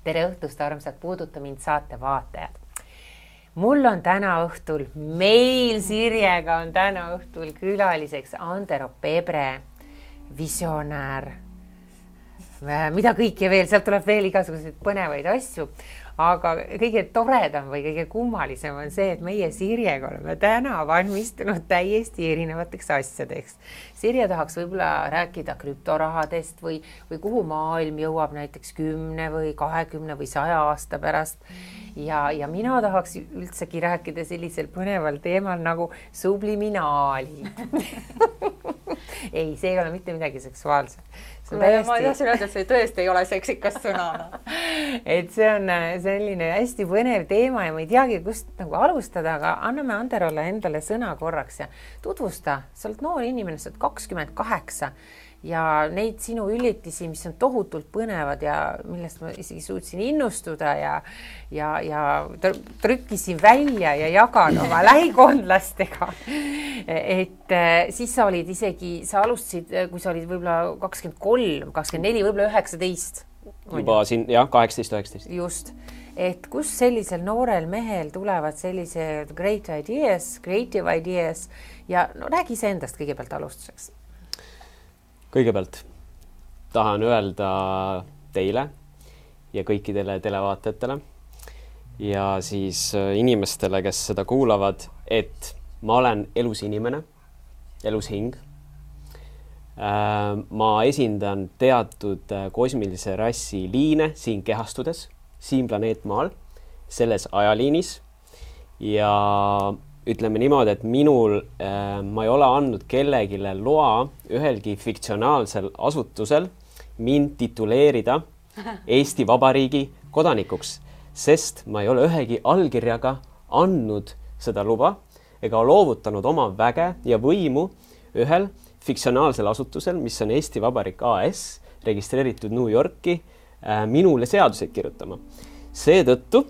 Tere õhtust, armsad Puuduta mind saate vaatajad. Mul on täna õhtul, meil Sirjega on täna õhtul külaliseks Andero Pebre, visionäär, mida kõike veel, sealt tuleb veel igasuguseid põnevaid asju, aga kõige toredam või kõige kummalisem on see, et meie Sirjega oleme täna valmistunud täiesti erinevateks asjadeks. Sirje tahaks võib-olla rääkida krüptorahadest või kuhu maailm jõuab näiteks 10 või 20 või 100 aasta pärast. Ja mina tahaks üldsegi rääkida sellisel põneval teemal nagu subliminaali. Ei, see ei ole mitte midagi seksuaalset. Ma tahtsin öelda, et see tõesti ei ole seksikas sõna. Et see on selline hästi põnev teema ja ma ei teagi, kust nagu alustada, aga anname Anderole endale sõna korraks ja tutvusta. Sa oled noor inimene, sa oled 28 ja neid sinu üllitisi, mis on tohutult põnevad ja millest ma isegi suutsin innustuda ja trükkisin välja ja jagan oma lähikondlastega. Et siis sa olid isegi, sa alustasid, kui sa olid võib-olla 23, 24, võib-olla 19. Juba siin, jah, 18-19. Just. Et kus sellisel noorel mehel tulevad sellised great ideas, creative ideas ja no, räägi see endast kõigepealt alustuseks. Kõigepealt tahan öelda teile ja kõikidele televaatajatele ja siis inimestele, kes seda kuulavad, et ma olen elus inimene, elus hing. Ma esindan teatud kosmilise rassi liine siin kehastudes, siin planeetmaal, selles ajaliinis ja ütleme niimoodi, et ma ei ole andnud kellegile loa ühelgi fiktsionaalsel asutusel mind tituleerida Eesti Vabariigi kodanikuks, sest ma ei ole ühegi allkirjaga andnud seda luba ega loovutanud oma väge ja võimu ühel fiktsionaalsel asutusel, mis on Eesti Vabariik AS, registreeritud New Yorki, minule seaduseid kirjutama. Seetõttu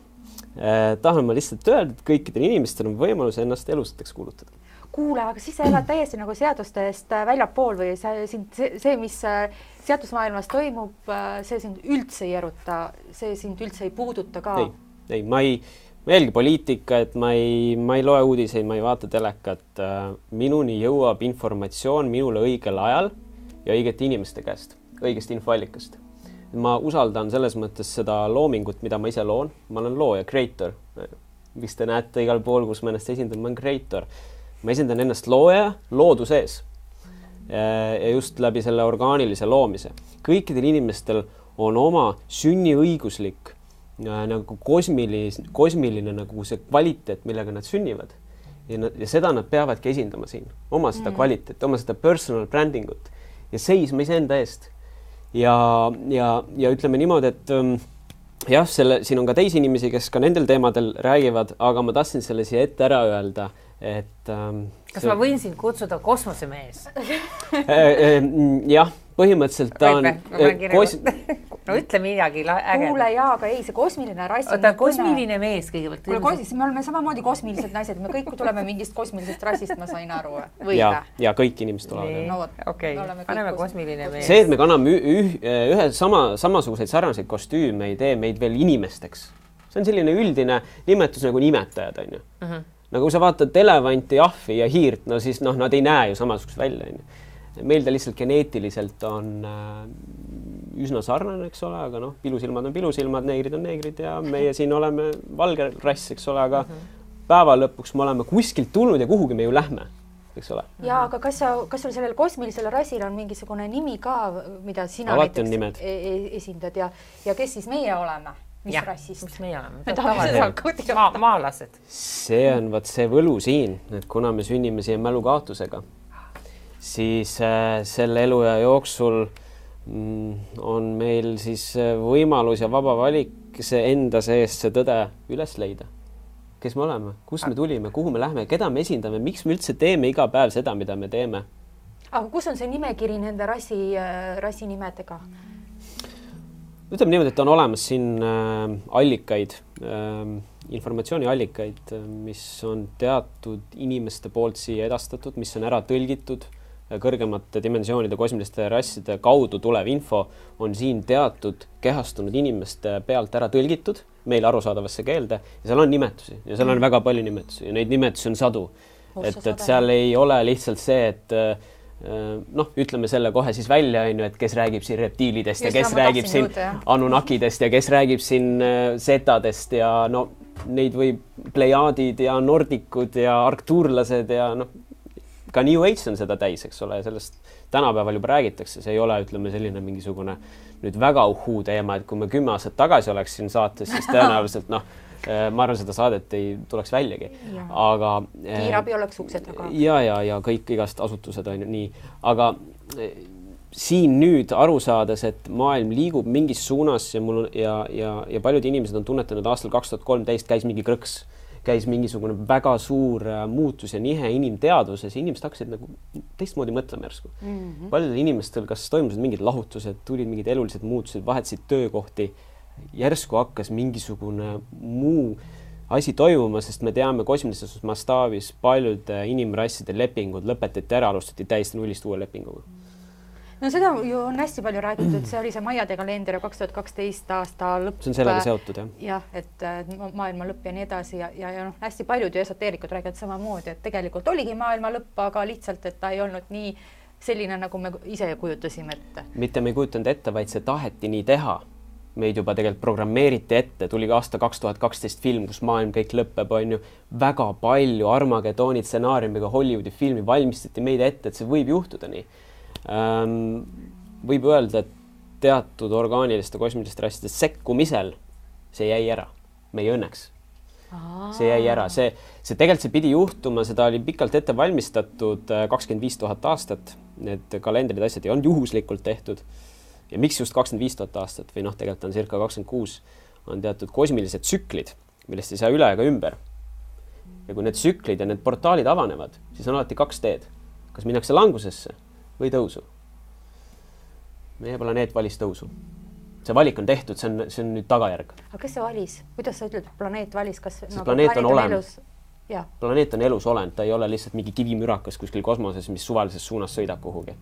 tahan ma lihtsalt öelda, et kõikidel inimestel on võimalus ennast elusateks kuulutada. Kuule, aga siis sa elad täiesti nagu seadustest väljapool või see, mis seadusmaailmas toimub, see sind üldse ei eruta, see sind üldse ei puuduta ka? Ei, ma jälgi poliitika, et ma ei loe uudiseid, ma ei vaata telekat. Minuni jõuab informatsioon minule õigel ajal ja õigete inimeste käest, õigest infoallikast. Ma usaldan selles mõttes seda loomingut, mida ma ise loon. Ma olen looja, creator. Mis te näete igal pool, kus ma ennast esindan, ma olen creator. Ma esindan ennast looja loodu sees. Ja just läbi selle orgaanilise loomise. Kõikidel inimestel on oma sünniõiguslik nagu kosmiline nagu see kvaliteet, millega nad sünnivad. Ja seda nad peavadki esindama siin. Oma seda kvaliteet, oma seda personal brandingut. Ja seisma iseenda eest. Ja ütleme niimoodi, et jah, siin on ka teisi inimesi, kes ka nendel teemadel räägivad, aga ma tahtsin selle siia ette ära öelda, et kas ma võin sind kutsuda kosmosemees? Jah, põhimõtteliselt ta on no ütle midagi ägeda. Kuule, jaa, aga ei, see kosmiline rass on kosmiline mees kõigepealt. Kuule, me oleme samamoodi kosmilised naised, me kõik tuleme mingist kosmilisest rassist, ma sain aru. Ja kõik inimesed tulevad. No, okei, paneme kosmiline mees. See, et me kanname ühe samasuguseid sarnaseid kostüüme, ei tee meid veel inimesteks. See on selline üldine nimetus nagu nimetajad, on ju. Nagu kui sa vaatad elevanti, ahvi ja hiirt, no siis nad ei näe ju samasugust välja. Meil ta lihtsalt geneetiliselt on üsna sarnane, eks ole, aga pilusilmad on pilusilmad, neegrid on neegrid ja meie siin oleme valge rass, eks ole, aga päeva lõpuks me oleme kuskilt tulnud ja kuhugi me ju lähme, eks ole. Ja, aga kas sul sellel kosmilisel rassil on mingisugune nimi ka, mida sina alati näiteks esindad ja kes siis meie oleme? Mis rassist? Mis meie oleme? Maalased. See on see võlu siin, et kuna me sünnime siia mälukaotusega, siis selle eluja jooksul on meil siis võimalus ja vaba valik see enda seest see tõde üles leida. Kes me oleme, kus me tulime, kuhu me lähme, keda me esindame, miks me üldse teeme iga päev seda, mida me teeme. Aga kus on see nimekiri nende rassi nimedega? Ütleme niimoodi, et on olemas siin allikaid, informatsiooniallikaid, mis on teatud inimeste poolt siia edastatud, mis on ära tõlgitud kõrgemate dimensioonide kosmiliste rasside kaudu tulev info on siin teatud kehastunud inimeste pealt ära tõlgitud meile arusaadavasse keelde ja seal on nimetusi ja seal on väga palju nimetusi ja neid nimetusi on sadu. Et seal ei ole lihtsalt see, et ütleme selle kohe siis välja, et kes räägib siin reptiilidest ja kes räägib siin anunnakidest ja kes räägib siin setadest ja neid võib plejaadid ja nordikud ja arktuurlased ja ka New Age on seda täis, eks ole, sellest tänapäeval juba räägitakse, see ei ole, ütleme, selline mingisugune nüüd väga uhuu teema, et kui me 10 aastat tagasi oleks siin saates, siis tõenäoliselt ma arvan, seda saadet ei tuleks väljagi. Aga kiirabi oleks ukse taga. Ja kõik igast asutused on nii. Aga siin nüüd aru saades, et maailm liigub mingis suunas ja paljud inimesed on tunnetanud aastal 2013 käis mingi krõks. Käis mingisugune väga suur muutus ja nihe inimteadvuses ja inimesed hakkasid nagu teistmoodi mõtlema järsku. Paljudel inimestel kas toimusid mingid lahutused, tulid mingid elulised muutused, vahetasid töökohti, järsku hakkas mingisugune muu asi toimuma, sest me teame kosmilises mastaabis paljude inimrasside lepingud lõpetati ära, alustati täiesti nullist uue lepinguga. No seda ju on hästi palju räägitud, see oli see Maiade kalender 2012 aasta lõpp. See on sellega seotud, jah. Jah, et maailma lõpp ja nii edasi ja hästi paljud ju esoteerikud räägivad samamoodi, et tegelikult oligi maailma lõpp, aga lihtsalt, et ta ei olnud nii selline, nagu me ise kujutasime ette. Mitte me ei kujutanud ette, vaid see taheti nii teha. Meid juba tegelikult programmeeriti ette, tuli aasta 2012 film, kus maailm kõik lõpeb, on ju väga palju Armageddoni stsenaariumiga Hollywoodi filmi valmistati meid ette, et see võib juhtuda nii. Võib öelda, et teatud orgaaniliste kosmiliste rasside sekkumisel see jäi ära, meie õnneks. See jäi ära, see tegelikult see pidi juhtuma, seda oli pikalt ette valmistatud 25 000 aastat, need kalendrid asjad ei olnud juhuslikult tehtud ja miks just 25 000 aastat või tegelikult on circa 26 on teatud kosmilised tsüklid, millest ei saa üle ega ümber ja kui need tsüklid ja need portaalid avanevad, siis on alati 2 teed, kas minnakse langusesse või tõusu. Meie planeet valis tõusu. See valik on tehtud, see on nüüd tagajärg. Aga kes see valis? Kuidas sa ütled, planeet valis? Planeet on olend. Planeet on elus olend, ta ei ole lihtsalt mingi kivimürakas kuskil kosmoses, mis suvalises suunas sõidab kuhugi.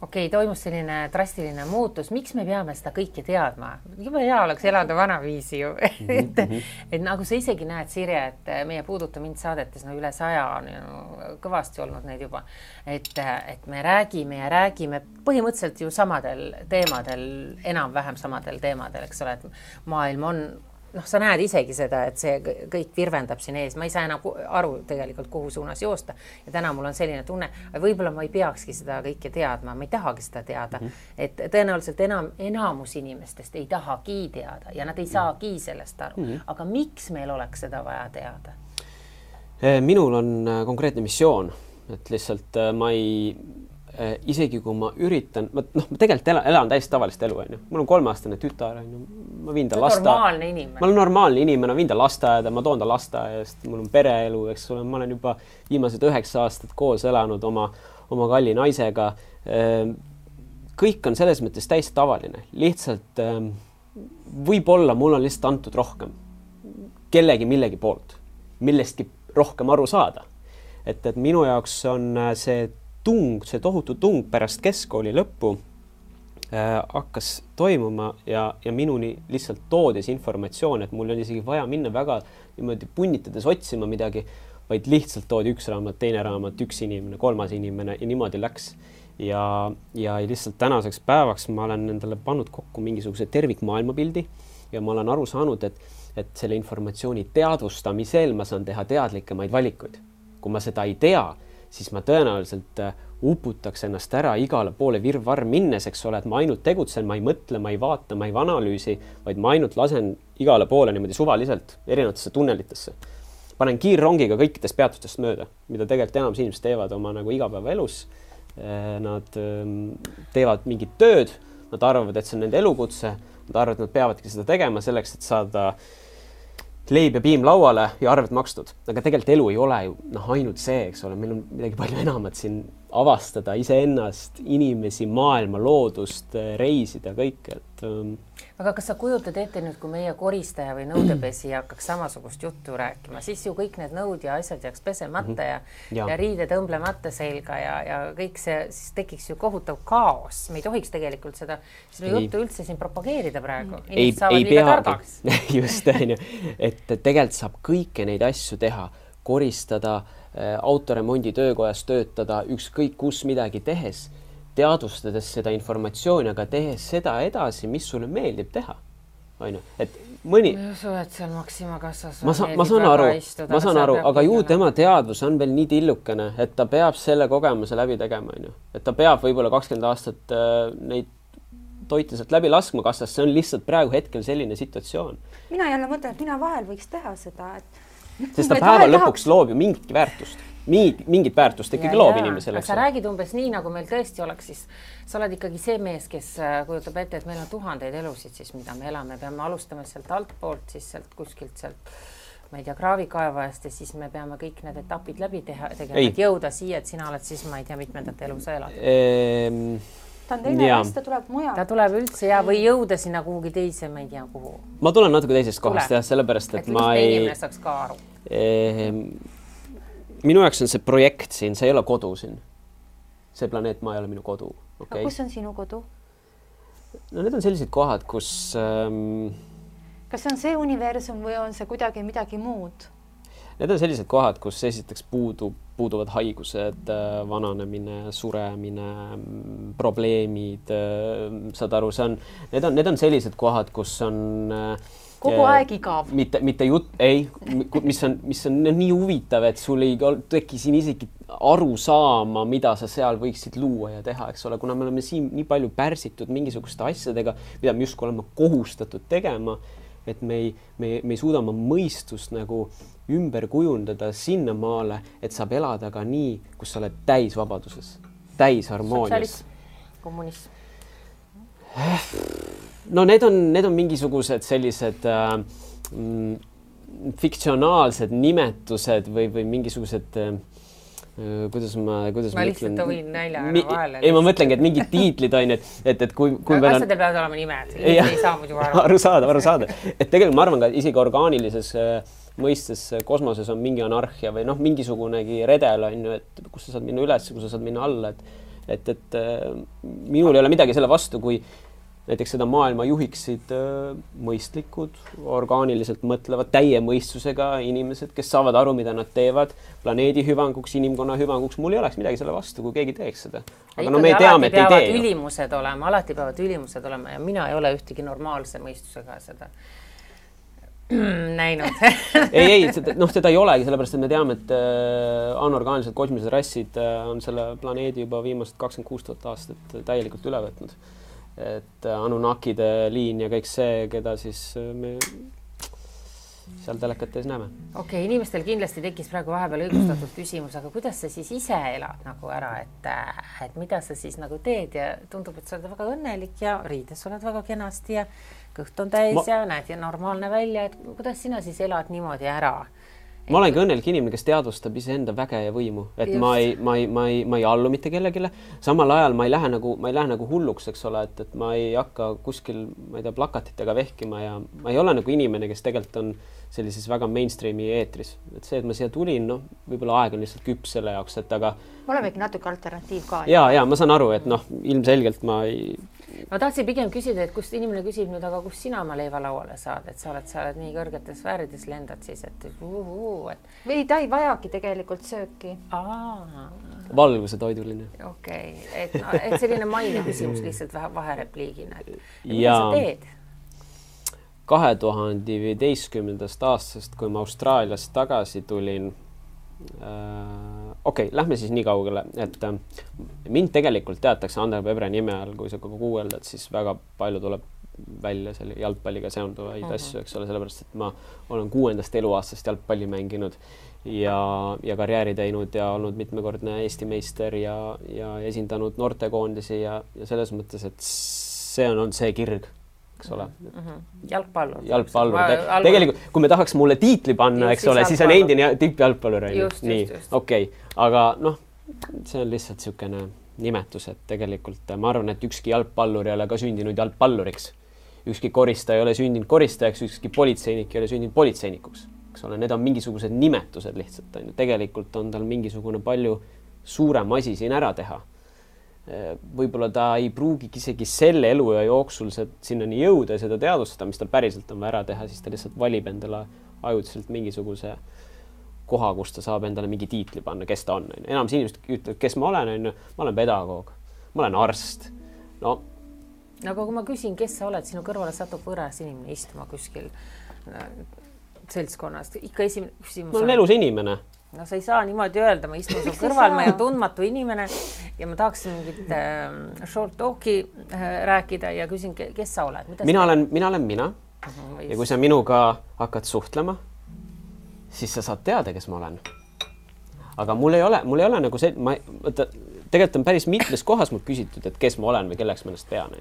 Okei, toimus selline drastiline muutus. Miks me peame seda kõike teadma? Juba hea oleks elada vanaviisi ju. et nagu sa isegi näed, Sirje, et meie Puuduta mind saadetes üle 100 on kõvasti olnud neid juba. Et me räägime põhimõtteliselt ju samadel teemadel, enam-vähem samadel teemadel, eks ole, et maailm on sa näed isegi seda, et see kõik virvendab siin ees. Ma ei saa enam aru tegelikult, kuhu suunas joosta. Ja täna mul on selline tunne, võib-olla ma ei peakski seda kõike teadma, ma ei tahagi seda teada. Et tõenäoliselt enamus inimestest ei tahagi teada ja nad ei saagi sellest aru. Aga miks meil oleks seda vaja teada? Minul on konkreetne missioon, et lihtsalt ma ei... isegi kui ma üritan, ma tegelikult elan täiesti tavalist elu, mul on 3-aastane tütar, ma viin ta normaalne inimene. Ma olen normaalne inimene, viin ta lasteaeda, ma toon ta lasteaedast, mul on pereelu, eks ole, ma olen juba viimased 9 aastat koos elanud oma kalli naisega. Kõik on selles mõttes täiesti tavaline, lihtsalt võib-olla mul on lihtsalt antud rohkem kellegi millegi poolt, millestki rohkem aru saada. Et minu jaoks on see tohutu tung pärast keskkooli lõppu hakkas toimuma ja minuni lihtsalt toodis informatsioon, et mul oli isegi vaja minna väga niimoodi punnitades otsima midagi, vaid lihtsalt toodi 1 raamat, 2 raamat, 1 inimene, 3 inimene ja niimoodi läks. Ja lihtsalt tänaseks päevaks ma olen endale pannud kokku mingisuguse tervikmaailmapildi ja ma olen aru saanud, et selle informatsiooni teadvustamisel ma saan teha teadlikemaid valikuid. Kui ma seda ei tea, siis ma tõenäoliselt uputaks ennast ära igale poole virvarr minnes, eks ole, et ma ainult tegutsen, ma ei mõtle, ma ei vaata, ma ei analüüsi, vaid ma ainult lasen igale poole niimoodi suvaliselt erinevatesse tunnelitesse. Panen kiirrongiga kõikidest peatustest mööda, mida tegelikult enamus inimesed teevad oma nagu igapäevaelus. Nad teevad mingit tööd, nad arvavad, et see on nende elukutse, nad arvavad, et nad peavadki seda tegema selleks, et saada leib ja piim lauale ja arved makstud. Aga tegelikult elu ei ole ju ainult see, eks ole, meil on midagi palju enamat siin avastada iseennast, inimesi, maailma, loodust, reisida, kõike, et aga kas sa kujutad ette nüüd, kui meie koristaja või nõudepesija hakkaks samasugust juttu rääkima, siis ju kõik need nõud ja asjad jääks pesemata ja riide tõmblemata selga ja kõik see, siis tekiks ju kohutav kaos. Me ei tohiks tegelikult seda juttu üldse siin propageerida praegu. Inimesed saavad liiga targaks. Just, et tegelikult saab kõike neid asju teha, koristada, autoremondi töökojas töötada, ükskõik kus midagi tehes, teadvustades seda informatsiooni, aga tehes seda edasi, mis sulle meeldib teha. Et mõni... Ma usu, et seal Maxima kassas ma saan aru, aga ju tema teadvus on veel nii tillukene, et ta peab selle kogemuse läbi tegema. Et ta peab võib-olla 20 aastat neid toite sealt läbi laskma kassas, see on lihtsalt praegu hetkel selline situatsioon. Mina jälle mõtlen, et mina vahel võiks teha seda, sest ta päeva lõpuks loob ju mingit väärtust. Mingit väärtust ikkagi loob inimesele. Sa räägid umbes nii, nagu meil tõesti oleks, siis sa oled ikkagi see mees, kes kujutab ette, et meil on tuhandeid elusid, siis mida me elame. Peame alustama sealt altpoolt, siis sealt kuskilt sealt, ma ei tea, kraavikaevajast ja siis me peame kõik need etapid läbi teha, et jõuda siia, et sina oled siis, ma ei tea, mitmendat elu sa elad. Ta on teine rest, ta tuleb mujal. Ta tuleb üldse või jõuda sinna kuhugi teise, ma ei tea, kuhu. Ma tulen natuke teisest kohast, sellepärast, et ma ei... inimene saaks ka aru. Minu jaoks on see projekt siin, see ei ole kodu siin. See planeet Maa ei ole minu kodu. Okay? Kus on sinu kodu? No need on sellised kohad, kus... Kas see on see universum või on see kuidagi midagi muud? Need on sellised kohad, kus esiteks puuduvad haigused, vananemine, suremine, probleemid, saad aru, need on sellised kohad, kus on... Kogu aeg igav. Mitte jutt, mis on nii huvitav, et sul ei teki siin isegi aru saama, mida sa seal võiksid luua ja teha, eks ole, kuna me oleme siin nii palju pärsitud mingisuguste asjadega, mida me justkui oleme kohustatud tegema, et me ei suuda oma mõistust nagu ümber kujundada sinna maale, et saab elada ka nii, kus sa oled täis vabaduses, täis harmoonias. Sotsialism, kommunism. No need on mingisugused sellised fiktsionaalsed nimetused või mingisugused kuidas ma lihtsalt võin näljaga vahele. Ei, ma mõtlengi, et mingid tiitlid on, et kui asjadel peavad olema nimed, ei saa muidu aru saada. Et tegelikult ma arvan ka isegi orgaanilises mõistes kosmoses on mingi anarhia või mingisugunegi redel on ju, et kus sa saad minna üles, kus sa saad minna alla, et minul ei ole midagi selle vastu, kui näiteks seda maailma juhiksid mõistlikud, orgaaniliselt mõtlevad, täie mõistusega inimesed, kes saavad aru, mida nad teevad, planeedi hüvanguks, inimkonna hüvanguks. Mul ei oleks midagi selle vastu, kui keegi teeks seda. Aga me teame, et ei tee. Alati peavad ülimused olema ja mina ei ole ühtegi normaalse mõistusega seda näinud. ei, seda ei olegi, sellepärast, et me teame, et anorgaanilised kosmilised rassid on selle planeedi juba viimased 26 000 aastat täielikult üle võtnud. Et Anunnakide liin ja kõik see, keda siis me seal telekates näeme. Okei, inimestel kindlasti tekkis praegu vahepeal õigustatud küsimus, aga kuidas sa siis ise elad nagu ära, et mida sa siis nagu teed ja tundub, et sa oled väga õnnelik ja riides oled väga kenasti ja kõht on täis ja näed ja normaalne välja, et kuidas sina siis elad niimoodi ära? Ma olengi õnnelik inimene, kes teadvustab iseenda väge ja võimu, et ma ei allu mitte kellegile. Samal ajal ma ei lähe nagu hulluks, eks ole, et ma ei hakka kuskil, ma ei tea, plakatitega vehkima ja ma ei ole nagu inimene, kes tegelikult on sellises väga mainstreami eetris. Et see, et ma siia tulin, võib-olla aeg on lihtsalt küps selle jaoks, et aga... Me olemegi natuke alternatiiv ka. Ja ma saan aru, et ilmselgelt ma ei... Ma tahtsin pigem küsida, et kust inimene küsib nüüd, aga kus sina oma leiva lauale saad, et sa oled nii kõrgetes sfäärides lendad siis, et Või ta ei vajagi tegelikult sööki. Valguse toiduline. Okei, et selline maine küsimus lihtsalt vaherepliigina. Mida sa teed? 2015. aastast, kui ma Austraaliast tagasi tulin, lähme siis nii kaugele, et mind tegelikult teatakse Ander Pebre nime all, kui sa guugeldad, siis väga palju tuleb välja selle jalgpalliga seonduvaid asju, eks ole, sellepärast, et ma olen 6. eluaastast jalgpalli mänginud ja karjääri teinud ja olnud mitmekordne Eesti meister ja esindanud noortekoondisi ja selles mõttes, et see on see kirg, eks ole. Jalgpallur. Tegelikult, kui me tahaks mulle tiitli panna, eks ole, siis on endine tippjalgpallur. Just. Okei, aga see on lihtsalt niisugune nimetus, et tegelikult ma arvan, et ükski jalgpallur ei ole ka sündinud jalgpalluriks. Ükski koristaja ei ole sündinud koristajaks, ükski politseinik ei ole sündinud politseinikuks. Eks ole, need on mingisugused nimetused lihtsalt. Tegelikult on tal mingisugune palju suurem asi siin ära teha. Võib-olla ta ei pruugigi isegi selle eluja jooksul sinnani jõuda ja seda teadvustada, mis tal päriselt on ära teha, siis ta lihtsalt valib endale ajutiselt mingisuguse koha, kus ta saab endale mingi tiitli panna, kes ta on. Enamus inimesed ütlevad, kes ma olen, ma olen pedagoog, ma olen arst. No, aga kui ma küsin, kes sa oled, sinu kõrvale satub võõras inimene istuma kuskil seltskonnast, ikka esimene küsimus. Ma olen elus inimene. No sa ei saa niimoodi öelda, ma istun su kõrval, ma olen tundmatu inimene ja ma tahaksin mingit short talki rääkida ja küsin, kes sa oled? Mina olen mina. Ja kui sa minuga hakkad suhtlema, siis sa saad teada, kes ma olen. Aga mul ei ole nagu see, tegelikult on päris mitmes kohas mul küsitud, et kes ma olen või kelleks ma ennast pean.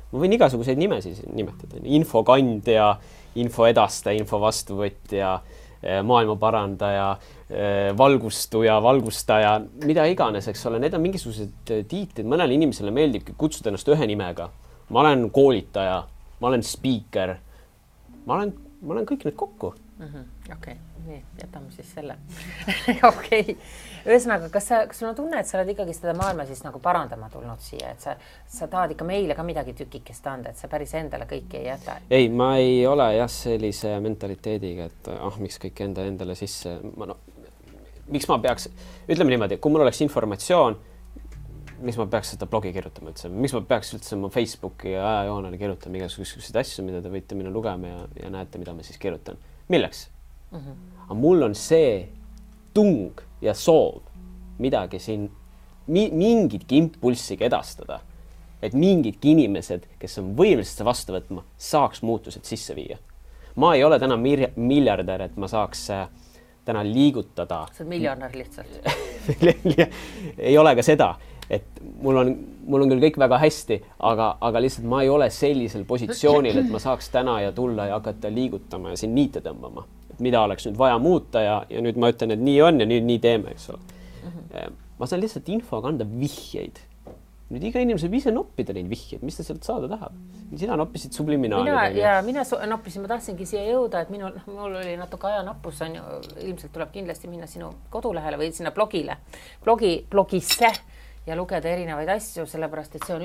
Ma võin igasuguseid nimesid nimetada. Infokandja, info edastaja, info vastuvõtja, maailma parandaja, valgustuja, valgustaja, mida iganes, eks ole, need on mingisugused tiitlid, mõnele inimesele meeldib kutsuda ennast ühe nimega. Ma olen koolitaja, ma olen speaker, ma olen kõik need kokku. Okei, nii, jätame siis selle. Okei. Ühesõnaga, kas sul on tunne, et sa oled ikkagi seda maailma siis nagu parandama tulnud siia, et sa tahad ikka meile ka midagi tükikest anda, et sa päris endale kõiki ei jäta? Ei, ma ei ole sellise mentaliteediga, et miks kõik endale sisse. Miks ma peaks, ütleme niimoodi, kui mul oleks informatsioon, miks ma peaks seda blogi kirjutama üldse? Miks ma peaks üldse oma Facebooki ja ajajoonele kirjutama igasuguseid asju, mida te võite minna lugema ja näete, mida ma siis kirjutan? Milleks? Aga mul on see tung ja soov midagi siin, mingitki impulssiga edastada, et mingidki inimesed, kes on võimelised vastu võtma, saaks muutused sisse viia. Ma ei ole täna miljardär, et ma saaks täna liigutada. Sa oled miljonär lihtsalt. Ei ole ka seda, et mul on küll kõik väga hästi, aga lihtsalt ma ei ole sellisel positsioonil, et ma saaks täna ja tulla ja hakata liigutama ja siin niite tõmbama. Mida oleks nüüd vaja muuta ja nüüd ma ütlen, et nii on ja nüüd nii teeme, eks ole. Ma saan lihtsalt infoga anda vihjeid. Nüüd iga inimene saab ise noppida neid vihjeid, mis ta sealt saada tahab. Sina noppisid subliminaali. Mina noppisin, ma tahtsingi siia jõuda, et mul oli natuke ajanappus, ilmselt tuleb kindlasti minna sinu kodulehele või sinna blogisse ja lugeda erinevaid asju, sellepärast, et see on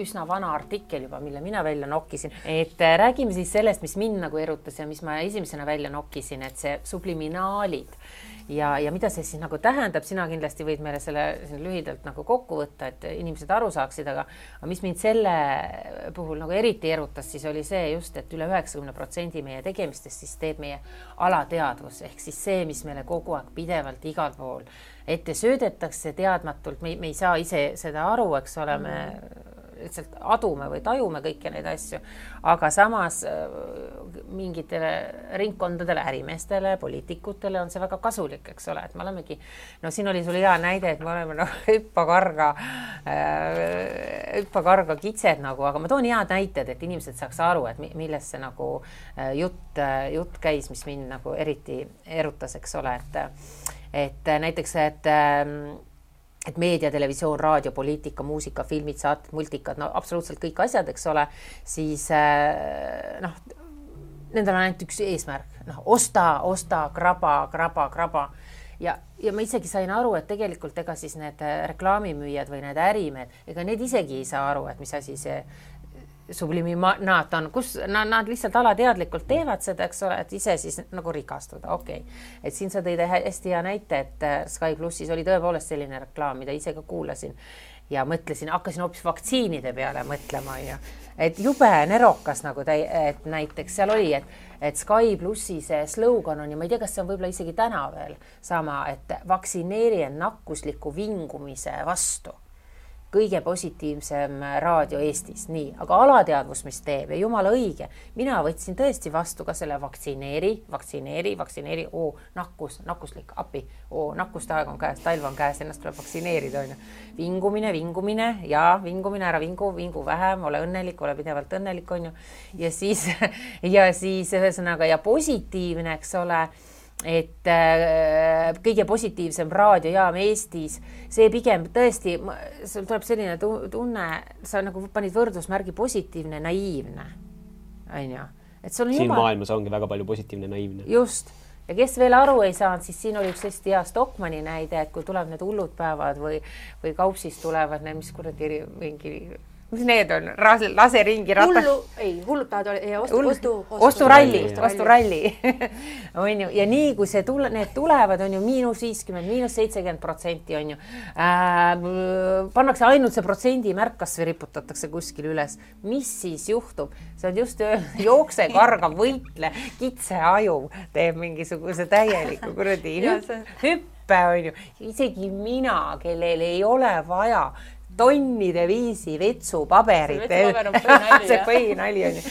üsna vana artikkel juba, mille mina välja nokkisin. Et räägime siis sellest, mis mind nagu erutas ja mis ma esimesena välja nokkisin, et see subliminaalid ja mida see siis nagu tähendab, sina kindlasti võid meile selle lühidalt nagu kokku võtta, et inimesed aru saaksid, aga mis mind selle puhul nagu eriti erutas, siis oli see just, et üle 90% meie tegemistest siis teeb meie alateadvus, ehk siis see, mis meile kogu aeg pidevalt igal pool ette söödetakse teadmatult, me ei saa ise seda aru, eks ole, me lihtsalt adume või tajume kõiki neid asju, aga samas mingitele ringkondadele, ärimeestele, poliitikutele on see väga kasulik, eks ole, et me olemegi, siin oli sul hea näide, et me oleme hüppakarga kitsed nagu, aga ma toon head näited, et inimesed saaks aru, et millest see nagu jutt käis, mis mind nagu eriti erutas, eks ole, et näiteks, et meedia, televisioon, raadio, poliitika, muusika, filmid, saated, multikad, absoluutselt kõik asjad, eks ole, siis nendel on ainult üks eesmärk, osta, kraba. Ja ma isegi sain aru, et tegelikult ega siis need reklaamimüüjad või need ärimehed, ega need isegi ei saa aru, et mis asi see subliminaat on, kus nad lihtsalt alateadlikult teevad seda, eks ole, et ise siis nagu rikastuda, okei. Et siin sa tõid hästi hea näite, et Sky Plussis oli tõepoolest selline reklaam, mida ise ka kuulasin ja mõtlesin, hakkasin hoopis vaktsiinide peale mõtlema ja et jube nerokas nagu et näiteks seal oli, et Sky Plussi see slogan on ja ma ei tea, kas see on võib-olla isegi täna veel sama, et vaktsineeri end nakkusliku vingumise vastu. Kõige positiivsem raadio Eestis, nii, aga alateadvus, mis teeb ja jumala õige. Mina võtsin tõesti vastu ka selle vaktsineeri, nakkuslik, appi, nakkustaeg on käes, talv on käes, ennast tuleb vaktsineerida. Vingumine ja vingumine, ära vingu vähem, ole õnnelik, ole pidevalt õnnelik, on ju. Ja siis ühesõnaga ja positiivne, eks ole, et kõige positiivsem raadiojaam Eestis, see pigem tõesti, sul tuleb selline tunne, sa nagu panid võrdusmärgi positiivne, naiivne, on ju. Et sul on siin maailmas ongi väga palju positiivne, naiivne. Just. Ja kes veel aru ei saanud, siis siin oli üks hästi hea Stockmanni näide, et kui tuleb need hullud päevad või kaupsist tulevad need, mis kuradi mingi, mis need on, lase ringi ratas. Hullud päevad osturalli. On ju, ja nii kui need tulevad, on ju -50, -70%, on ju, pannakse ainult see protsendi märkas või riputatakse kuskil üles. Mis siis juhtub? See on just jookse, karga, võitle, kitse aju teeb mingisuguse täieliku kuradi hüppe, on ju. Isegi mina, kellel ei ole vaja tonnide viisi vetsupaberit. See põhinali on ju.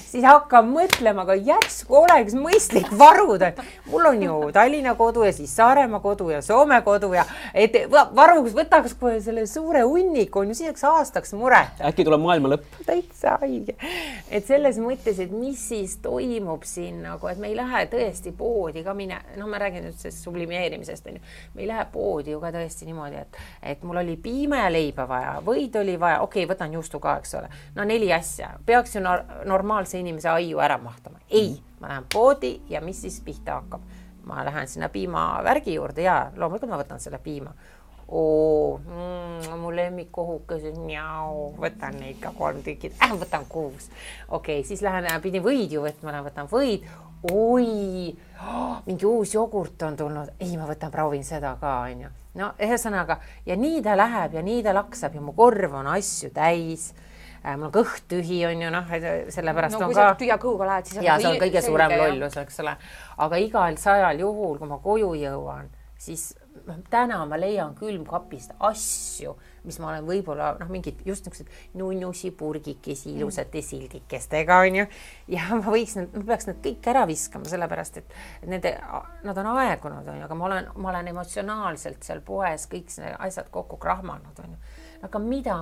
Siis hakkab mõtlema, aga järsku oleks mõistlik varuda. Mul on ju Tallinna kodu ja siis Saaremaa kodu ja Soome kodu ja et varuks võtaks kohe selle suure hunniku, on ju selleks aastaks muret. Äkki tuleb maailma lõpp. Täitsa haige. Et selles mõttes, et mis siis toimub siin, nagu, et me ei lähe tõesti poodi ka mine, ma räägin nüüd sellest sublimeerimisest, on ju. Me ei lähe poodi ju ka tõesti niimoodi, et mul oli piime ja leiba vaja, võid oli vaja, okei, võtan juustu ka, eks ole. No 4 asja. Peaks ju normaalse inimese aiu ära mahtama. Ei, ma lähen poodi ja mis siis pihta hakkab? Ma lähen sinna piimavärgi juurde ja loomulikult ma võtan selle piima. Mu lemmikkohukesed, võtan neid ka 3 tükid, võtan 6. Okei, siis pidin võid ju võtma, võtan võid. Mingi uus jogurt on tulnud. Ei, ma proovin seda ka, on ju. No, ühesõnaga, ja nii ta läheb ja nii ta laksab ja mu korv on asju täis. Mul on kõht tühi, on ju, sellepärast on ka... Kui sa tühja kõhuga lähed, siis... Ja see on kõige suurem lollus, eks ole. Aga igal 100 juhul, kui ma koju jõuan, siis täna ma leian külmkapist asju, mis ma olen võib-olla, mingid just niisugused nunnusi purgikesi ilusate sildikestega, on ju. Ja ma peaks need kõik ära viskama, sellepärast, et nad on aegunud, on ju, aga ma olen emotsionaalselt seal poes kõik asjad kokku krahmanud, on ju. Aga mida...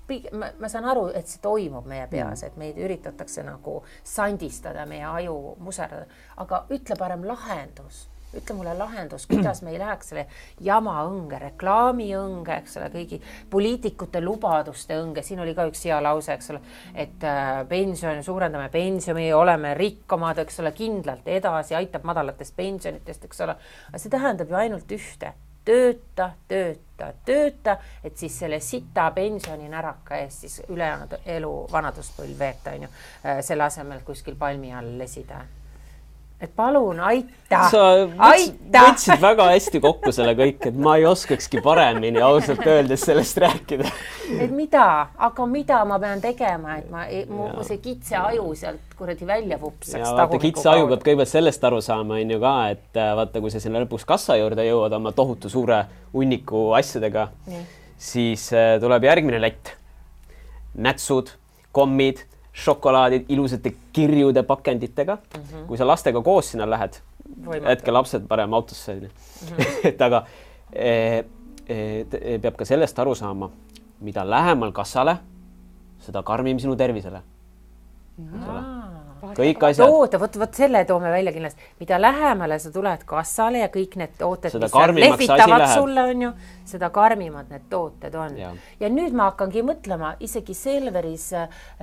Ma saan aru, et see toimub meie peas, et meid üritatakse nagu sandistada, meie aju muserdada, aga ütle parem lahendus. Ütle mulle lahendus, kuidas me ei läheks selle jama õnge, reklaami õnge, eks ole, kõigi poliitikute lubaduste õnge. Siin oli ka üks hea lause, eks ole, et suurendame pensioni, oleme rikkamad, eks ole, kindlalt edasi, aitab madalatest pensionitest, eks ole. Aga see tähendab ju ainult ühte. Tööta, et siis selle sita pensioni näraka eest siis ülejäänud elu vanaduspõlv veeta, on ju, selle asemel kuskil palmi all lesida. Et palun, aita! Sa võtsid väga hästi kokku selle kõik, et ma ei oskakski paremini ausalt öeldes sellest rääkida. Et mida ma pean tegema, et mu see kitse aju sealt kuradi välja vupsaks. Ja vaata, kitse aju peab kõigepealt sellest aru saama, on ju ka, et vaata, kui sa sinna lõpuks kassa juurde jõuad oma tohutu suure hunniku asjadega, siis tuleb järgmine lätt. Nätsud, kommid, šokolaadid, ilusate kirjude pakenditega. Kui sa lastega koos sinna lähed, hetke lapsed parem autosse. Et aga peab ka sellest aru saama, mida lähemal kassale, seda karmim sinu tervisele. Kõik asjad. Võt selle toome välja kindlasti. Mida lähemale sa tuled kassale ja kõik need tooted, seda mis lehvitavad sulle, on ju, seda karmimad need tooted on. Ja nüüd ma hakkangi mõtlema, isegi Selveris,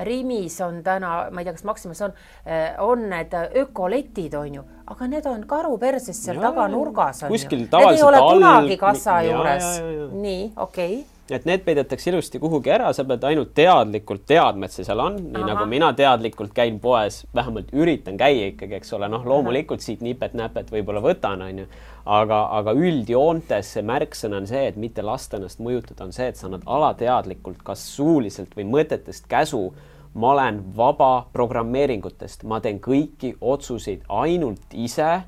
Rimis on täna, ma ei tea, kas Maximas on need ökoletid, on ju, aga need on karuperses seal taga nurgas. Kuskil tavaliselt need ei ole kunagi kassa juures. Nii, okei. Et need peidetakse ilusti kuhugi ära, sa pead ainult teadlikult teadma, et see seal on, nii nagu mina teadlikult käin poes, vähemalt üritan käia ikkagi, eks ole, loomulikult siit nipet-näpet võib-olla võtan, on ju, aga üldjoontes see märksõna on see, et mitte lasta ennast mõjutada, on see, et sa annad alateadlikult kas suuliselt või mõtetest käsu, ma olen vaba programmeeringutest, ma teen kõiki otsuseid ainult ise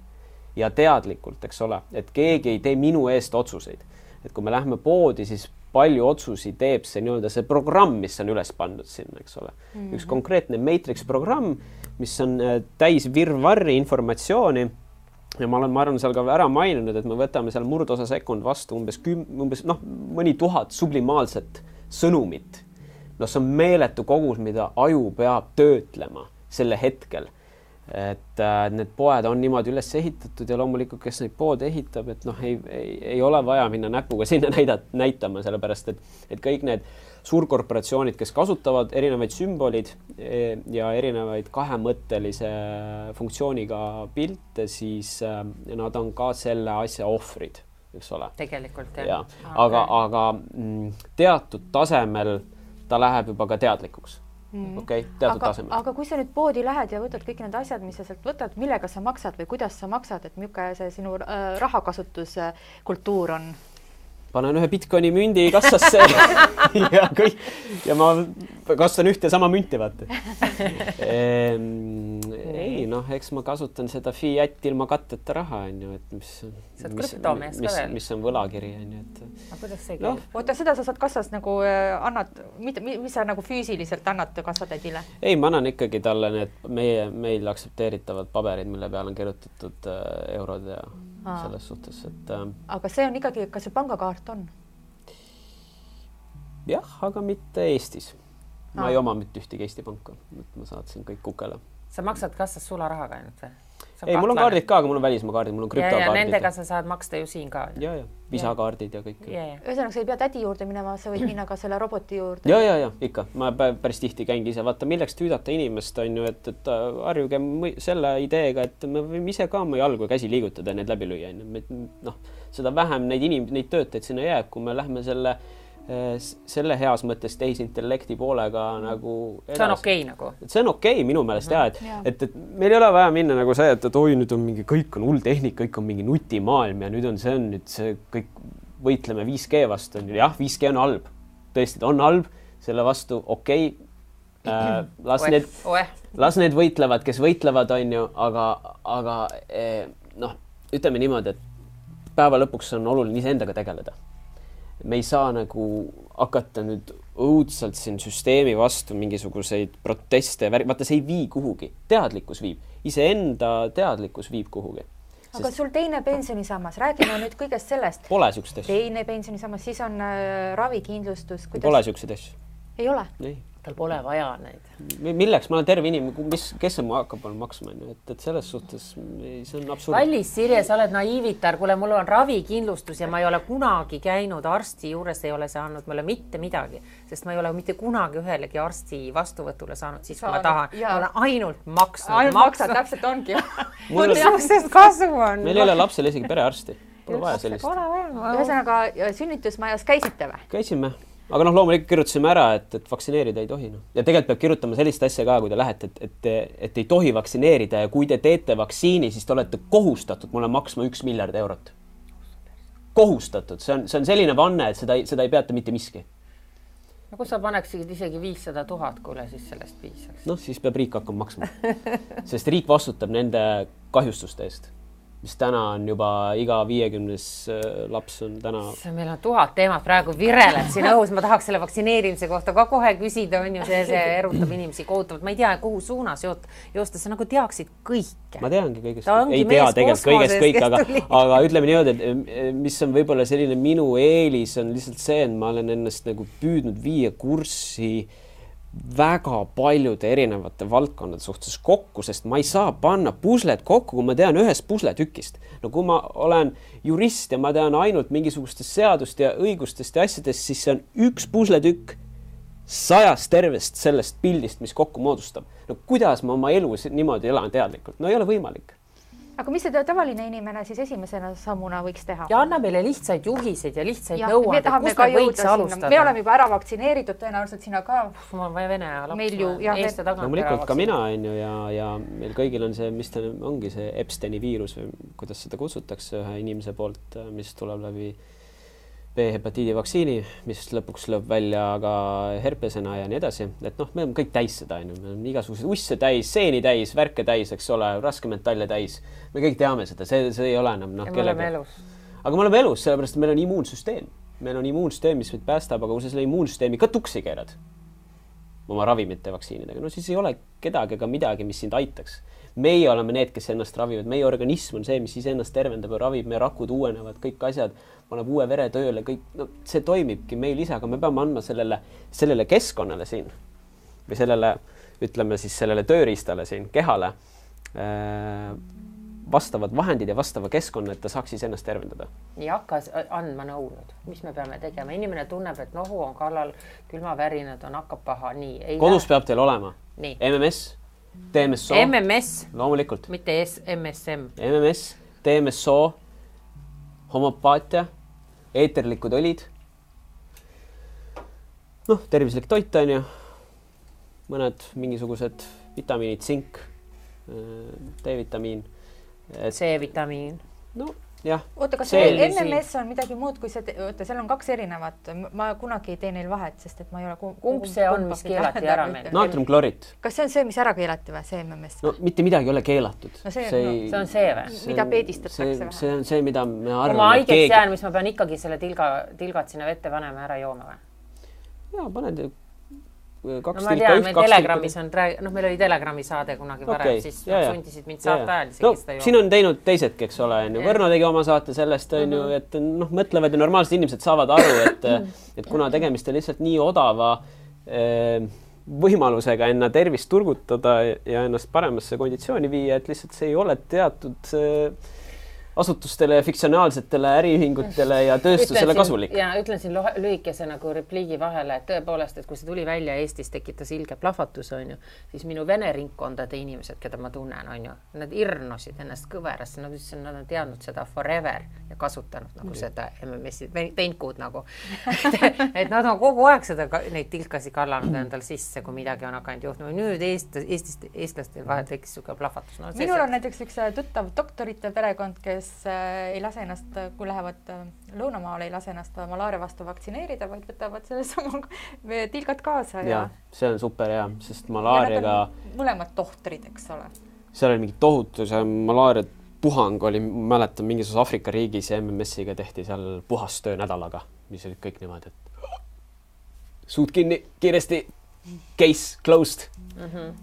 ja teadlikult, eks ole, et keegi ei tee minu eest otsuseid. Et kui me lähme poodi, siis palju otsusi teeb see nii-öelda see programm, mis on üles pandud sinna, eks ole. Üks konkreetne Matrix programm, mis on täis virvarri informatsiooni ja ma arvan, seal ka ära maininud, et me võtame seal murdosa sekund vastu umbes mõni 1000 sublimaalset sõnumit. See on meeletu kogus, mida aju peab töötlema selle hetkel. et need poed on niimoodi üles ehitatud ja loomulikult, kes neid poode ehitab, et noh, ei ole vaja minna näpuga sinna näitama, sellepärast et kõik need suurkorporatsioonid, kes kasutavad erinevaid sümbolid ja erinevaid kahemõttelise funktsiooniga pilte, siis nad on ka selle asja ohvrid, eks ole. Tegelikult, jah. Aga teatud tasemel ta läheb juba ka teadlikuks. Okei, teatud tasemel. Aga kui sa nüüd poodi lähed ja võtad kõik need asjad, mis sa sealt võtad, millega sa maksad või kuidas sa maksad, et milline see sinu rahakasutuskultuur on? Panen ühe Bitcoini mündi kassasse ja ma kastan ühte sama münti, vaata. Ei, noh, eks ma kasutan seda fiat ilma katteta raha, et mis on võlakiri, et. Aga kuidas see käib? Oota, seda sa saad kassas nagu annad, mis sa nagu füüsiliselt annad kassatädile? Ei, ma annan ikkagi talle need meil aksepteeritavad paberid, mille peal on kirjutatud eurod ja selles suhtes, et. Aga see on ikkagi, kas see pangakaart on? Jah, aga mitte Eestis. Ma ei oma mitte ühtegi Eesti panka, ma saatsin kõik kukele. Sa maksad kassas sularahaga ainult või? Ei, mul on kaardid ka, aga mul on välismaa kaardid, mul on krüptokaardid. Ja nendega sa saad maksta ju siin ka. Ja, visakaardid ja kõik. Ühesõnaga, sa ei pea tädi juurde minema, sa võid minna ka selle roboti juurde. Ja, ikka. Ma päris tihti käingi ise. Vaata, milleks tüüdata inimest on ju, et harjuge selle ideega, et me võime ise ka oma jalgu ja käsi liigutada ja need läbi lüüa. Noh, seda vähem neid töötajaid sinna jääb, kui me lähme selle heas mõttes tehisintellekti poolega nagu edasi. See on okei nagu. See on okei minu meelest et meil ei ole vaja minna nagu see, et oi, nüüd on mingi, kõik on hull tehnik, kõik on mingi nutimaailm ja nüüd on see kõik võitleme 5G vastu. Jah, 5G on halb. Tõesti, on halb, selle vastu okei. Las need võitlevad, kes võitlevad, on ju, aga noh, ütleme niimoodi, et päeva lõpuks on oluline iseendaga tegeleda. Me ei saa nagu hakata nüüd õudselt siin süsteemi vastu mingisuguseid proteste. Vaata, see ei vii kuhugi. Teadlikkus viib. Iseenda teadlikkus viib kuhugi. Aga sul teine pensionisammas, räägime nüüd kõigest sellest. Pole siukseid asju. Teine pensionisammas, siis on ravikindlustus. Pole siukseid asju. Ei ole? Ei. Tal pole vaja neid. Milleks? Ma olen terve inimene, kes see mu hakkab maksma, et selles suhtes see on absurd. Kallis, Sirje, sa oled naiivitar, kuule, mul on ravikindlustus ja ma ei ole kunagi käinud arsti juures, ei ole saanud mulle mitte midagi, sest ma ei ole mitte kunagi ühelegi arsti vastuvõtule saanud, siis kui ma tahan. Ma olen ainult maksnud. Ainult maksad, täpselt ongi. Sest kasu on. Meil ei ole lapsel isegi perearsti. Pole vaja sellist. Ühesõnaga, sünnitusmajas käisite või? Käisime. Aga noh, loomulikult kirjutasime ära, et vaktsineerida ei tohi. Ja tegelikult peab kirjutama sellist asja ka, kui te lähete, et ei tohi vaktsineerida ja kui te teete vaktsiini, siis te olete kohustatud mulle maksma 1 miljard eurot. Kohustatud. See on selline vanne, et seda ei peata mitte miski. No kui sa paneksid isegi 500 000, kuule, siis sellest piisaks. Noh, siis peab riik hakkama maksma. Sest riik vastutab nende kahjustuste eest. Mis täna on juba iga 50 laps on täna. Meil on 1000 teemat praegu vireleb siin õhus. Ma tahaks selle vaktsineerimise kohta ka kohe küsida, on ju, see erutab inimesi kohutavalt. Ma ei tea, kuhu suunas joosta, sa nagu teaksid kõike. Ma teangi kõigest. Ei tea tegelikult kõigest kõik, aga ütleme niimoodi, et mis on võib-olla selline minu eelis on lihtsalt see, et ma olen ennast nagu püüdnud viia kurssi väga paljude erinevate valdkondade suhtes kokku, sest ma ei saa panna puslet kokku, kui ma tean ühest pusletükist. No kui ma olen jurist ja ma tean ainult mingisugustest seadust ja õigustest ja asjadest, siis see on üks pusletükk 100 tervest sellest pildist, mis kokku moodustab. No kuidas ma oma elu niimoodi elan teadlikult? No ei ole võimalik. Aga mis see tavaline inimene siis esimesena sammuna võiks teha? Ja anna meile lihtsaid juhiseid ja lihtsaid nõuandeid, kust me võiks alustada. Me oleme juba ära vaktsineeritud, tõenäoliselt sina ka. Mul on vaja vene laps, eest ja tagant loomulikult ka mina on ju ja meil kõigil on see, mis ta ongi see Epsteini viirus või kuidas seda kutsutakse ühe inimese poolt, mis tuleb läbi B-hepatiidi vaktsiini, mis lõpuks lööb välja ka herpesena ja nii edasi. Et noh, me oleme kõik täis seda, me oleme igasugused usse täis, seeni täis, värke täis, eks ole, raskemetalle täis. Me kõik teame seda, see ei ole enam. Ja me oleme elus. Aga me oleme elus, sellepärast, et meil on immuunsüsteem. Meil on immuunsüsteem, mis meid päästab, aga kui sa selle immuunsüsteemi ka tuksi keerad oma ravimite vaktsiinidega, no siis ei ole kedagi ega midagi, mis sind aitaks. Meie oleme need, kes ennast ravivad. Meie organism on see, mis siis ennast tervendab ja ravib. Meie rakud uuenevad, kõik asjad, paneb uue vere tööle, kõik, no, see toimibki meil ise, aga me peame andma sellele keskkonnale siin või sellele, ütleme siis sellele tööriistale siin, kehale, vastavad vahendid ja vastava keskkonna, et ta saaks siis ennast tervendada. Ei hakka andma nõu nüüd, mis me peame tegema. Inimene tunneb, et nohu on kallal, külmavärinad on, hakkab paha. Nii, kodus peab teil olema nii. MMS, DMSO. MMS, loomulikult. mitte MSM. MMS, DMSO, homopaatia, eeterlikud õlid. Noh, tervislik toit on ju. Mõned mingisugused vitamiinid, sink, D-vitamiin. C-vitamiin. No, jah. Oota, kas see MMS on midagi muud kui see, oota, seal on 2 erinevat. Ma kunagi ei tee neil vahet, sest et ma ei ole kumb see on, mis keelati ära meil? Naatriumklorid. Kas see on see, mis ära keelati või, see MMS? No mitte midagi ei ole keelatud. No see on see või? Mida peedistatakse või? See on see, mida me arvame. Kui ma haigeks jään, mis ma pean ikkagi selle tilgad sinna vette panema ära jooma või? Jaa, paned 2 ma tean, meil Telegrammis on, meil oli Telegrami saade kunagi varem, siis sundisid mind saate ajal no, siin on teinud teisedki, eks ole, Võrno tegi oma saate sellest, et mõtlevad ja normaalsed inimesed saavad aru, et kuna tegemist on lihtsalt nii odava võimalusega enda tervist turgutada ja ennast paremasse konditsiooni viia, et lihtsalt see ei ole teatud asutustele, fiktsionaalsetele äriühingutele ja tööstusele kasulik. Ja ütlen siin lühikese nagu repliigi vahele, et tõepoolest, et kui see tuli välja Eestis, tekitas ilge plahvatus, on ju, siis minu vene ringkondade inimesed, keda ma tunnen, on ju, nad irnosid ennast kõverasse, nad on teadnud seda forever ja kasutanud nagu seda MMS-i teinkud nagu. Et nad on kogu aeg neid tilkasi kallanud endal sisse, kui midagi on hakanud juhtuma. Nüüd eestlastel vahel tekkis suke plahvatus. No, minul on näiteks üks tuttav doktorite perekond, kes ei lase ennast, kui lähevad lõunamaale, ei lase ennast malaaria vastu vaktsineerida, vaid võtavad selle sama tilgad kaasa. Ja see on super hea, sest malaariaga... mõlemad tohtrid, eks ole. Seal oli mingi tohutu, see malaaria puhang oli, mäletan, mingisuguses Afrika riigis ja MMS-iga tehti seal puhastöö nädalaga, mis olid kõik niimoodi, et suud kinni, kiiresti, case closed.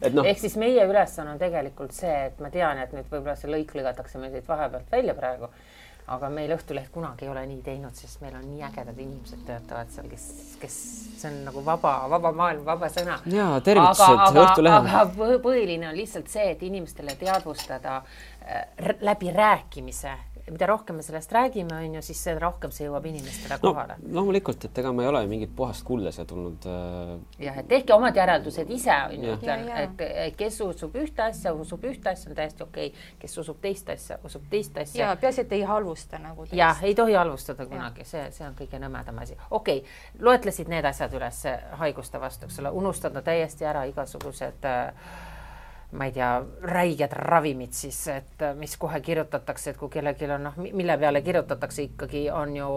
Et no. Ehk siis meie ülesanne on tegelikult see, et ma tean, et nüüd võib-olla see lõik lõgatakse meil siit vahepealt välja praegu, aga meil Õhtuleht kunagi ei ole nii teinud, sest meil on nii ägedad inimesed töötavad seal, kes see on nagu vaba maailm, vaba sõna. Jaa, tervitused Õhtulehel. Aga põhiline on lihtsalt see, et inimestele teadvustada läbi rääkimise. Mida rohkem me sellest räägime, on ju, siis see rohkem see jõuab inimestele kohale. No, loomulikult, et ega ma ei ole mingit puhast kuulda siia tulnud. Jah, et tehke omad järeldused ise, on ju, et kes usub ühte asja, on täiesti okei. Kes usub teist asja, usub teist asja. Ja peasi, et ei halvusta nagu teist. Jah, ei tohi halvustada kunagi, see on kõige nõmedam asi. Okei, loetlesid need asjad üles haiguste vastu, eks ole, unustada täiesti ära igasugused ma ei tea, räiged ravimid siis, et mis kohe kirjutatakse, et kui kellelgi on, mille peale kirjutatakse ikkagi on ju,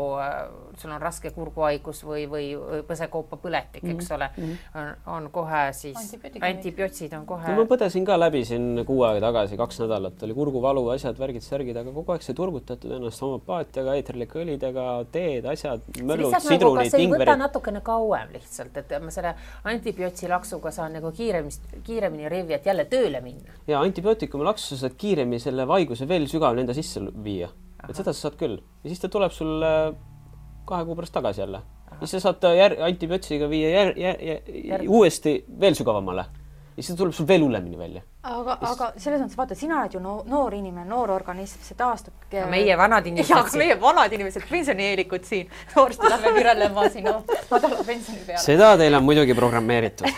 sul on raske kurguhaigus või põsekoopa põletik, eks ole, on kohe siis, antibiootsid on kohe. No ma põdesin ka läbi siin 6 aega tagasi, 2 nädalat, oli kurguvalu, asjad, värgid, särgid, aga kogu aeg see turgutatud ennast homopaatiaga, eeterlike õlidega, teed, asjad, möllud, sidrunid, kas ei võta natukene kauem lihtsalt, et ma selle antibiootsi laksuga saan nagu kiiremini revi, et jälle tööle minna. Ja antibiootikumi laksu saad kiiremini selle vaiguse veel sügavalt enda sisse viia. Et seda sa saad küll. Ja siis ta tuleb sul 2 kuu pärast tagasi jälle. Ja siis sa saad antibiootsiga viia uuesti veel sügavamale. Ja siis ta tuleb sul veel hullemini välja. Aga selles mõttes vaata, sina oled ju noor inimene, noor organism, see taastub. Meie vanad inimesed. Ja, meie vanad inimesed, pensionieelikud siin. Noorsti lähme virelema sinu madala pensioni peale. Seda teil on muidugi programmeeritud.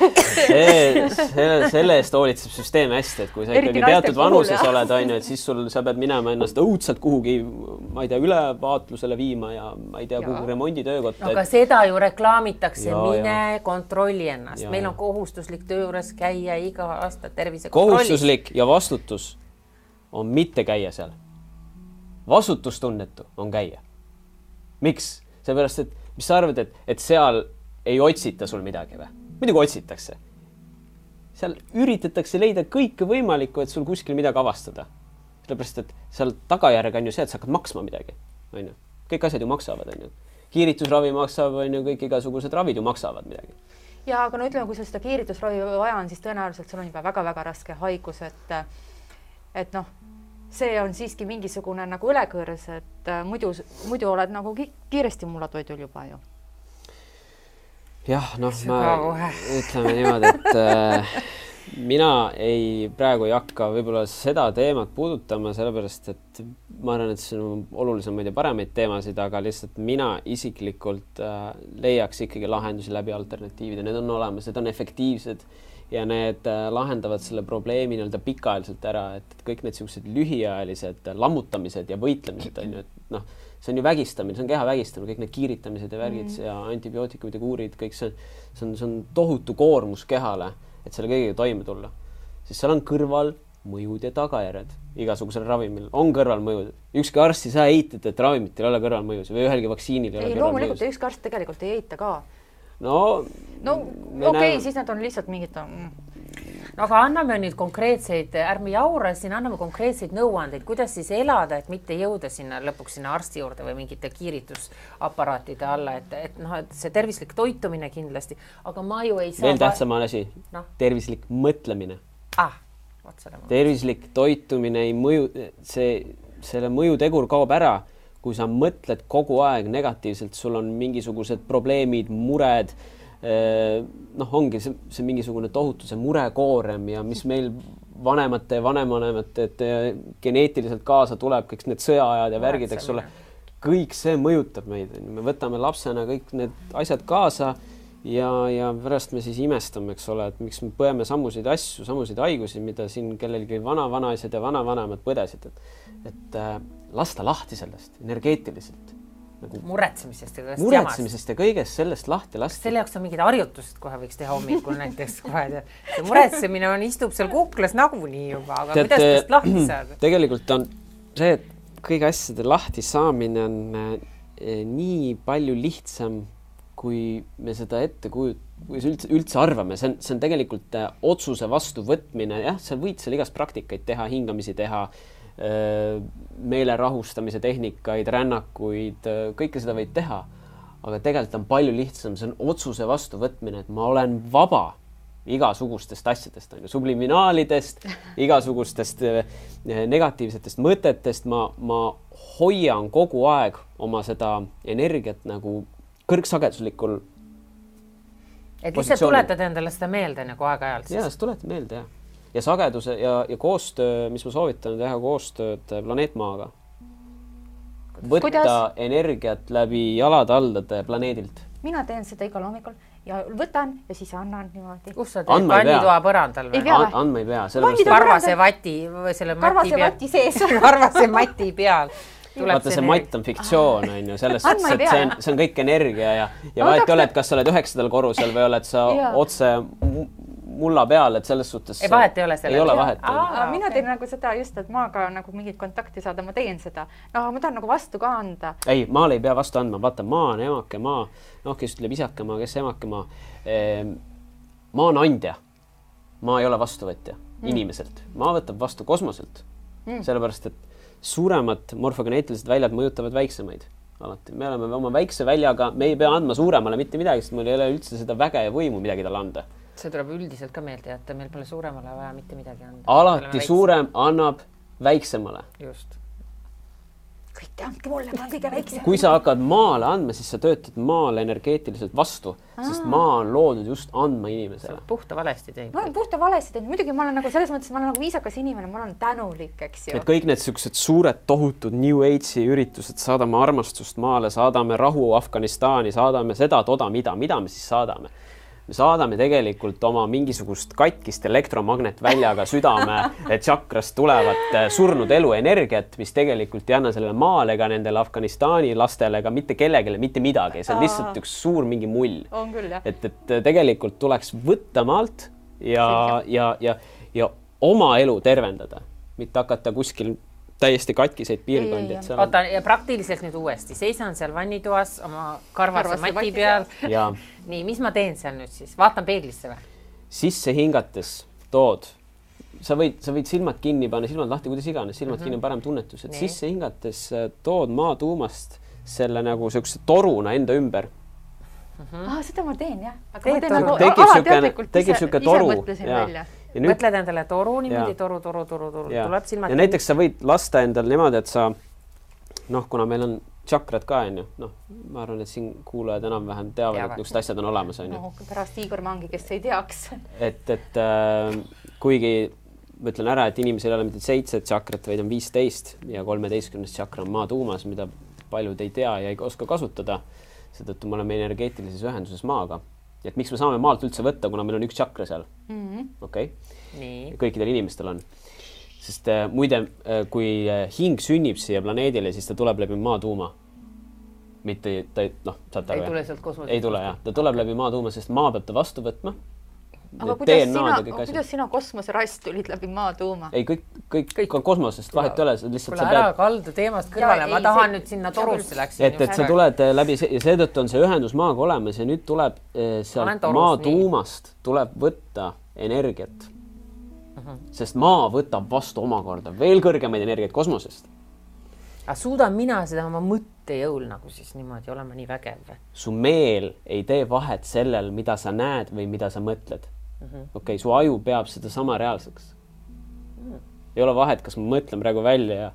Selle eest hoolitseb süsteem hästi, et kui sa ikkagi teatud vanuses oled, et siis sa pead minema ennast õudselt kuhugi, ma ei tea, ülevaatlusele viima ja ma ei tea, kuhu remonditöökotta. Aga seda ju reklaamitakse, mine kontrolli ennast. Meil on kohustuslik töö juures käia iga aasta tervise kohustuslik ja vastutus on mitte käia seal. Vastutustunnetu on käia. Miks? Seepärast, et mis sa arvad, et seal ei otsita sul midagi või? Muidugi otsitakse. Seal üritatakse leida kõike võimalikku, et sul kuskil midagi avastada. Sellepärast, et seal tagajärg on ju see, et sa hakkad maksma midagi. Kõik asjad ju maksavad. Kiiritusravi maksab, kõik igasugused ravid ju maksavad midagi. Ja aga no ütleme, kui sul seda kiiritusravi vaja on, siis tõenäoliselt sul on juba väga-väga raske haigus, et noh, see on siiski mingisugune nagu ülekõrs, et muidu oled nagu kiiresti mullatoidul juba ju. Jah, noh, ma ütleme niimoodi, et mina praegu ei hakka võib-olla seda teemat puudutama, sellepärast et ma arvan, et see on olulisemaid ja paremaid teemasid, aga lihtsalt mina isiklikult leiaks ikkagi lahendusi läbi alternatiivide. Need on olemas, need on efektiivsed ja need lahendavad selle probleemi nii-öelda pikaajaliselt ära, et kõik need sellised lühiajalised lammutamised ja võitlemised on ju, et noh, see on ju vägistamine, see on keha vägistamine, kõik need kiiritamised ja värgid ja antibiootikumid ja kuurid, kõik see on tohutu koormus kehale, et selle kõigega toime tulla. Siis seal on kõrval mõjud ja tagajärjed igasugusel ravimil. On kõrvalmõjud. Ükski arst ei saa eitada, et ravimitel ei ole kõrvalmõjusid või ühelgi vaktsiinil ei ole kõrvalmõjusid. Loomulikult ükski arst tegelikult ei eita ka. No okei, siis nad on lihtsalt mingid... No aga anname nüüd konkreetseid, ärme jaura siin, anname konkreetseid nõuandeid, kuidas siis elada, et mitte jõuda sinna lõpuks sinna arsti juurde või mingite kiiritusaparaatide alla, et see tervislik toitumine kindlasti, aga ma ju ei saa... Veel tähtsam asi, tervislik mõtlemine. Tervislik toitumine ei mõju, selle mõjutegur kaob ära, kui sa mõtled kogu aeg negatiivselt, sul on mingisugused probleemid, mured, ongi see mingisugune tohutu see murekoorem ja mis meil vanemate ja vanemvanemate geneetiliselt kaasa tuleb, kõik need sõjaajad ja värgid, eks ole, kõik see mõjutab meid. Me võtame lapsena kõik need asjad kaasa ja pärast me siis imestame, eks ole, et miks me põeme samusid asju, samusid haigusi, mida siin kellelgi vana-vanaised ja vana-vanemad põdesid, et lasta lahti sellest energeetiliselt. Muretsemisest ja kõigest sellest lahti lasta. Selle jaoks on mingid harjutused kohe võiks teha hommikul näiteks kohe. See muretsemine istub seal kuklas nagunii juba, aga kuidas sellest lahti saada? Tegelikult on see, et kõige asjade lahti saamine on nii palju lihtsam, kui me seda kui üldse arvame. See on tegelikult otsuse vastu võtmine. Jah, sa võid seal igast praktikaid teha, hingamisi teha, meele rahustamise tehnikaid, rännakuid, kõike seda võid teha, aga tegelikult on palju lihtsam, see on otsuse vastu võtmine, et ma olen vaba igasugustest asjadest, subliminaalidest, igasugustest negatiivsetest mõtetest, ma hoian kogu aeg oma seda energiat nagu kõrgsageduslikul et lihtsalt tuletad endale seda meelde nagu aeg-ajalt. Jah, seda tuletad meelde, jah. Ja sageduse ja koostöö, mis ma soovitan teha koostööd planeetmaaga. Võtta energiat läbi jalad-aldade planeedilt. Mina teen seda igal hommikul ja võtan ja siis annan niimoodi. Kus sa teed? Vannitoa põrandal või? Andma ei pea. Karvase vati või selle mati sees. Karvase mati peal. Vaata, see matt on fiktsioon, on ju, selles suhtes, et see on kõik energia ja vahet ei ole, et kas sa oled 9. korrusel või oled sa otse mulla peal, et selles suhtes vahet ei ole selle. Ei ole vahet. Mina teen nagu seda just, et maaga nagu mingit kontakti saada, ma teen seda. Ma tahan nagu vastu ka anda. Ei, maal ei pea vastu andma. Vaata, maa on emake maa. Kes ütleb isake maa, kes emake maa. Maa on andja. Maa ei ole vastuvõtja inimeselt. Maa võtab vastu kosmoselt. Sellepärast, et suuremad morfogeneetilised väljad mõjutavad väiksemaid. Alati. Me oleme oma väikse väljaga, me ei pea andma suuremale mitte midagi, sest meil ei ole üldse seda väge ja võimu midagi talle anda. See tuleb üldiselt ka meelde jätta, meil pole suuremale vaja mitte midagi anda. Alati suurem annab väiksemale. Just. Kõik andke mulle, ma olen kõige väiksem. Kui sa hakkad maale andma, siis sa töötad maale energeetiliselt vastu, sest maa on loodud just andma inimesele. Puhta valesti teinud. Ma olen puhta valesti teinud. Muidugi ma olen nagu selles mõttes, ma olen nagu viisakas inimene, ma olen tänulik, eks ju. Et kõik need sellised suured tohutud New Age'i üritused, saadame armastust maale, saadame rahu Afganistani, saadame seda, toda, mida me siis saadame. Me saadame tegelikult oma mingisugust katkist elektromagnetväljaga südame tšakrast tulevat surnud eluenergiat, mis tegelikult ei anna sellele maale ega nendele Afganistani lastele ega mitte kellegile, mitte midagi. See on lihtsalt üks suur mingi mull. On küll, jah. Et tegelikult tuleks võtta maalt ja oma elu tervendada, mitte hakata kuskil täiesti katkiseid piirkondi. Oota, ja praktiliselt nüüd uuesti. Seisan seal vannitoas oma karvase mati peal. Nii, mis ma teen seal nüüd siis? Vaatan peeglisse või? Sisse hingates tood. Sa võid silmad kinni panna, silmad lahti, kuidas iganes. Silmad kinni on parem tunnetus. Et sisse hingates tood maa tuumast selle nagu sellise toruna enda ümber. Seda ma teen, jah. Tekib siuke toru. Mõtled endale toru niimoodi, toru. Tuleb silmad. Ja näiteks sa võid lasta endale niimoodi, et sa, kuna meil on tšakrad ka, ma arvan, et siin kuulajad enam-vähem teavad, et niisugused asjad on olemas. Pärast Igor Mangi, kes ei teaks. Et kuigi ma ütlen ära, et inimesel ei ole mitte 7 tšakrat, vaid on 15 ja 13. tšakra on maa tuumas, mida paljud ei tea ja ei oska kasutada. Seetõttu me oleme energeetilises ühenduses maaga. Et miks me saame maalt üldse võtta, kuna meil on üks tšakra seal? Okei. Kõikidel inimestel on. Sest muide, kui hing sünnib siia planeedile, siis ta tuleb läbi maa tuuma. Mitte, saate aru, ei tule sealt kosmosest. Ei tule, jah. Ta tuleb läbi maa tuuma, sest maa peab ta vastu võtma. Aga kuidas sina kosmoseraist tulid läbi maa tuuma? Ei, kõik on kosmosest, vahet ei ole. Kuule ära kaldu teemast kõrvale, ma tahan nüüd sinna torusse läksin. Et sa tuled läbi ja seetõttu on see ühendus maaga olemas ja nüüd tuleb sealt maa tuumast tuleb võtta energiat. Sest maa võtab vastu omakorda veel kõrgemaid energiat kosmosest. Aga suudan mina seda oma mõttejõul nagu siis niimoodi olema nii vägev? Su meel ei tee vahet sellel, mida sa näed või mida sa mõtled. Okei, su aju peab seda sama reaalseks. Ei ole vahet, kas ma mõtlen praegu välja ja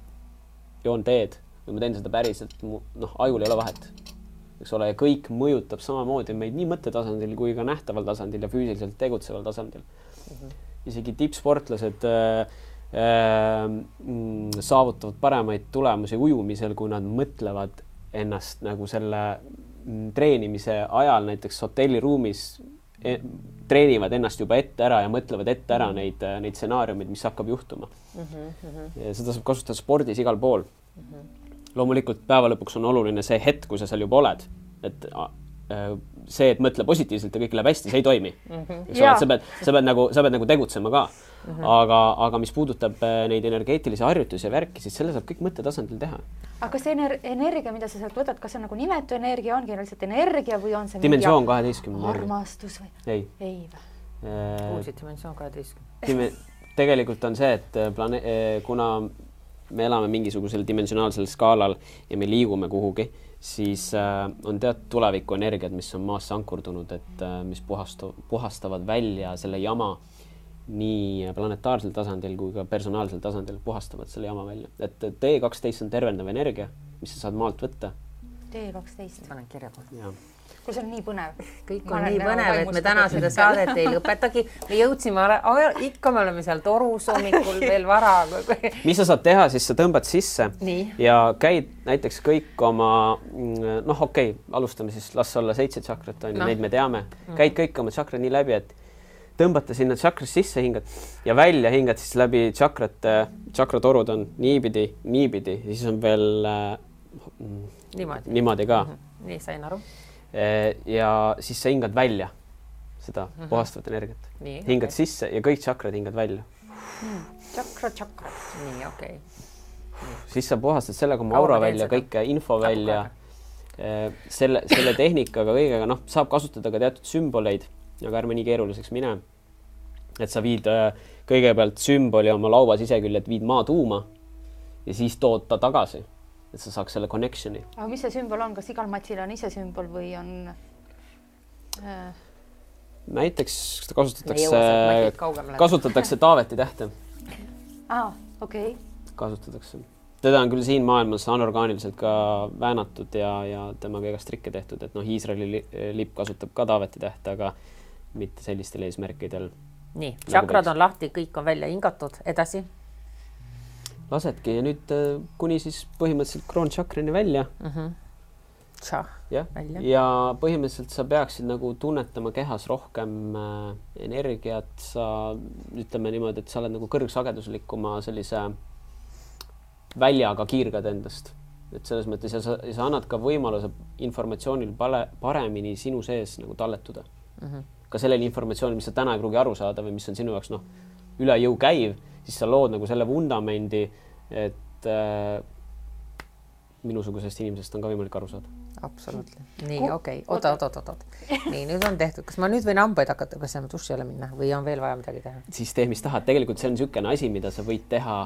joon teed või ma teen seda päriselt. Ajul ei ole vahet. Eks ole, ja kõik mõjutab samamoodi meid nii mõttetasandil kui ka nähtaval tasandil ja füüsiliselt tegutseval tasandil. Isegi tippsportlased saavutavad paremaid tulemusi ujumisel, kui nad mõtlevad ennast nagu selle treenimise ajal näiteks hotelliruumis treenivad ennast juba ette ära ja mõtlevad ette ära neid stsenaariumid, mis hakkab juhtuma. Ja seda saab kasutada spordis igal pool. Loomulikult päeva lõpuks on oluline see hetk, kui sa seal juba oled. Et see, et mõtle positiivselt ja kõik läheb hästi, see ei toimi. Sa pead nagu tegutsema ka. Aga mis puudutab neid energeetilisi harjutusi ja värki, siis selle saab kõik mõttetasandil teha. Aga see energia, mida sa sealt võtad, kas see on nagu nimetu energia, ongi lihtsalt energia või on see dimensioon 12 armastus või? Ei või? Uusi dimensioon 12. Tegelikult on see, et kuna me elame mingisugusel dimensionaalsel skaalal ja me liigume kuhugi, siis on teatud tuleviku energiad, mis on maasse ankurdunud, et mis puhastavad välja selle jama nii planetaarsel tasandil kui ka personaalsel tasandil puhastavad selle jama välja. Et D12 on tervendav energia, mis sa saad maalt võtta. D12. Panen kirja kohe. Kui see on nii põnev. Kõik on nii põnev, et me täna seda saadet ei lõpetagi. Me jõudsime, ikka me oleme seal torus hommikul veel vara. Mis sa saad teha, siis sa tõmbad sisse ja käid näiteks kõik oma, alustame siis, las olla 7 tšakrat, neid me teame. Käid kõik oma tšakrad nii läbi, et tõmbate sinna tšakras sisse, hingad ja välja hingad siis läbi tšakratorud on niipidi, ja siis on veel niimoodi ka. Nii, sain aru. Ja siis sa hingad välja seda puhastavat energiat. Hingad sisse ja kõik tšakrad hingad välja. Tšakra. Nii, okei. Siis sa puhastad sellega oma aura välja, kõike info välja. Selle tehnikaga kõigega, saab kasutada ka teatud sümboleid, aga ärme nii keeruliseks mine. Et sa viid kõigepealt sümboli oma laua siseküljed, viid maa tuuma ja siis tood ta tagasi, et sa saaks selle connectioni. Aga mis see sümbol on? Kas igal matsil on ise sümbol või on... Näiteks kasutatakse Taaveti tähte. Okei. Kasutatakse. Teda on küll siin maailmas anorgaaniliselt ka väänatud ja temaga igast trikke tehtud, et Iisraeli lipp kasutab ka Taaveti tähte, aga mitte sellistel eesmärkidel. Nii, tšakrad on lahti, kõik on välja hingatud, edasi? Lasedki ja nüüd kuni siis põhimõtteliselt kroončakrini välja. Ja põhimõtteliselt sa peaksid nagu tunnetama kehas rohkem energiat, sa ütleme niimoodi, et sa oled nagu kõrgsageduslikuma sellise väljaga kiirgad endast. Et selles mõttes ja sa annad ka võimaluse informatsioonil paremini sinu sees nagu talletuda. Ka sellele informatsioonil, mis sa täna ei pruugi aru saada või mis on sinu jaoks üle jõu käiv, siis sa lood nagu selle vundamendi, et minusugusest inimesest on ka võimalik aru saada. Absoluutselt. Nii, okei. Oota. Nii, nüüd on tehtud. Kas ma nüüd võin hambaid hakata, kas ma duši jälle minna või on veel vaja midagi teha? Siis tee, mis tahad. Tegelikult see on niisugune asi, mida sa võid teha.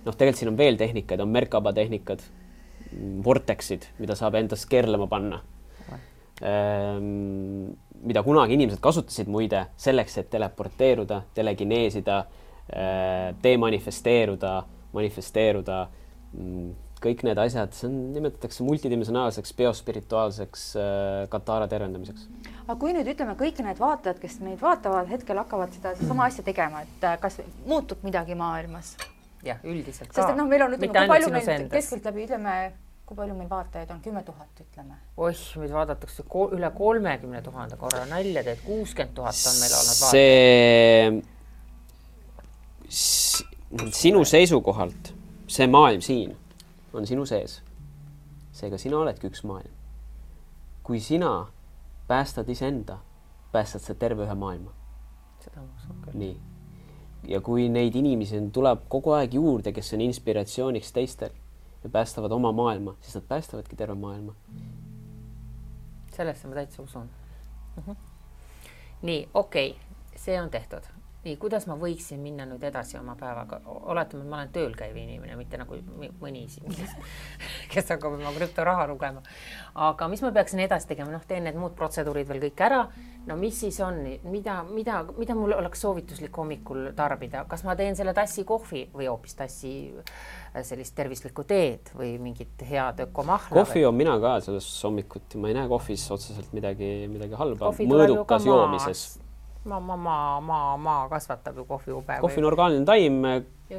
Tegelikult siin on veel tehnikaid, on Merkaba tehnikad, vortexid, mida saab endast keerlema panna. Mida kunagi inimesed kasutasid muide selleks, et teleporteeruda, telekineesida, demanifesteeruda, manifesteeruda, kõik need asjad, see on, nimetatakse multidimensionaalseks biospirituaalseks katara tervendamiseks. Aga kui nüüd ütleme, kõik need vaatajad, kes meid vaatavad, hetkel hakkavad seda sama asja tegema, et kas muutub midagi maailmas? Jah, üldiselt ka. Sest et meil on, ütleme, kui palju meil keskelt läbi, ütleme, kui palju meil vaatajaid on? 10 000, ütleme. Oih, meid vaadatakse üle 30 000 korra nalja, et 60 000 on meil olnud vaatajaid. Sinu seisukohalt, see maailm siin on sinu sees. Seega sina oledki üks maailm. Kui sina päästad iseenda, päästad sa terve ühe maailma. Seda ma usun küll. Nii. Ja kui neid inimesi tuleb kogu aeg juurde, kes on inspiratsiooniks teistel ja päästavad oma maailma, siis nad päästavadki terve maailma. Sellesse ma täitsa usun. Nii, okei, see on tehtud. Nii, kuidas ma võiksin minna nüüd edasi oma päevaga? Oletame, et ma olen tööl käiv inimene, mitte nagu mõni siin, kes hakkab oma krüptoraha lugema. Aga mis ma peaksin edasi tegema? Teen need muud protseduurid veel kõik ära. No mis siis on? Mida mul oleks soovituslik hommikul tarbida? Kas ma teen selle tassi kohvi või hoopis tassi sellist tervislikku teed või mingit head ökomahla? Kohvi on mina ka selles hommikuti. Ma ei näe kohvis otseselt midagi halba. Mõõdukas joomises. Maa kasvatab ju kohvi ube. Kohvi on orgaaniline taim.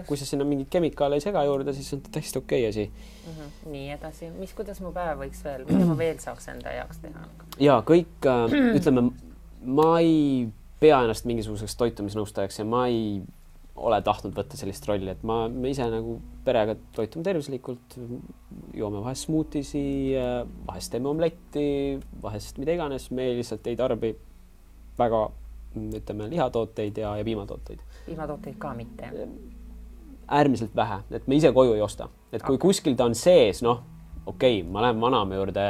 Kui sa sinna mingid kemikaale ei sega juurde, siis on täiesti okei asi. Nii edasi. Kuidas mu päev võiks veel? Mida ma veel saaks enda jaoks teha? Ja kõik, ütleme, ma ei pea ennast mingisuguseks toitumisnõustajaks ja ma ei ole tahtnud võtta sellist rolli, et me ise nagu perega toitume tervislikult, joome vahest smootisi, vahest teeme omletti, vahest mida iganes, me lihtsalt ei tarbi väga ütleme lihatooteid ja piimatooteid. Piimatooteid ka mitte? Äärmiselt vähe, et me ise koju ei osta. Et kui kuskil ta on sees, okei, ma lähen vanamme juurde,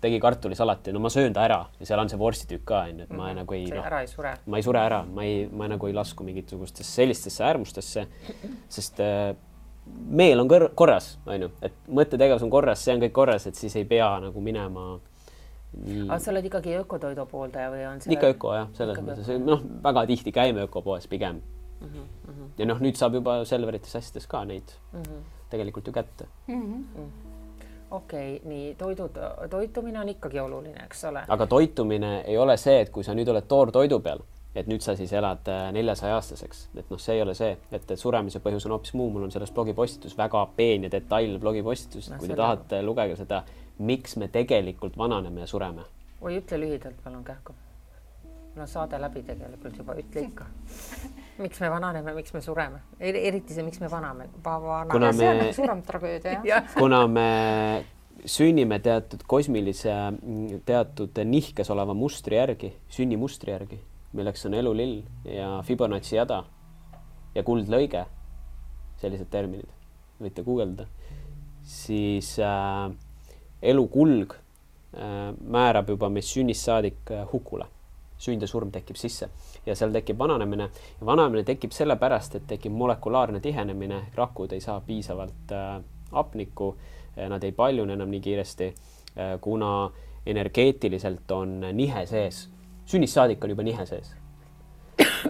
tegi kartulisalati, ma söön ta ära ja seal on see vorstitükk ka, et ma nagu ei... ära ei sure. Ma ei sure ära, ma nagu ei lasku mingisugustesse sellistesse äärmustesse, sest meel on korras, et mõttetegevus on korras, see on kõik korras, et siis ei pea nagu minema... Aga sa oled ikkagi ökotoidu pooldaja või on see... Ikka öko, jah, selles mõttes. Väga tihti käime ökopoes pigem. Ja nüüd saab juba Selverites asjades ka neid tegelikult ju kätte. Okei, nii toitumine on ikkagi oluline, eks ole? Aga toitumine ei ole see, et kui sa nüüd oled toortoidu peal, et nüüd sa siis elad 400-aastaseks, et see ei ole see, et suremise põhjus on hoopis muu. Mul on selles blogipostitus väga peen ja detail blogipostitus, kui te tahate lugege seda, miks me tegelikult vananeme ja sureme. Või ütle lühidalt, palun kähku. No saade läbi tegelikult juba, ütle ikka. Miks me vananeme, miks me sureme? Eriti see, miks me vaname. See on suurem tragöödia, jah? Kuna me sünnime teatud kosmilise, teatud nihkes oleva mustri järgi, sünnimustri järgi, milleks on elulill ja Fibonacci jada ja kuldlõige, sellised terminid, võite guugeldada, siis elukulg määrab juba meist sünnist saadik hukule. Sünd ja surm tekib sisse ja seal tekib vananemine. Ja vananemine tekib sellepärast, et tekib molekulaarne tihenemine. Rakud ei saa piisavalt hapnikku, nad ei paljune enam nii kiiresti, kuna energeetiliselt on nihe sees. Sünnist saadik on juba nihe sees.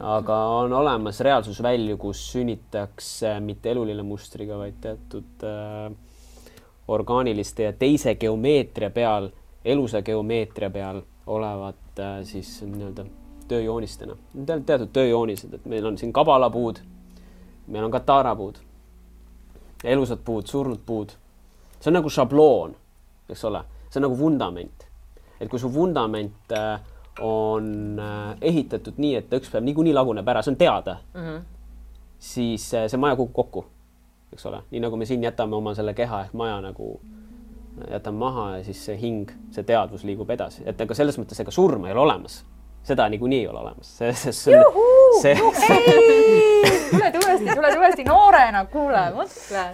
Aga on olemas reaalsusvälju, kus sünnitakse mitte elulille mustriga, vaid teatud orgaaniliste ja teise geomeetria peal, elusa geomeetria peal olevat siis nii-öelda tööjoonistena. Teatud tööjoonised, et meil on siin kabalapuud, meil on katarapuud, elusad puud, surnud puud. See on nagu šabloon, eks ole, see on nagu vundament. Et kui su vundament on ehitatud nii, et ta üks päev niikuinii laguneb ära, see on teada, siis see maja kukub kokku. Eks ole, nii nagu me siin jätame oma selle keha ehk maja nagu jätame maha ja siis see hing, see teadvus liigub edasi. Et aga selles mõttes ega surma ei ole olemas. Seda niikuinii ei ole olemas. Tule uuesti noorena, kuule, mõtle.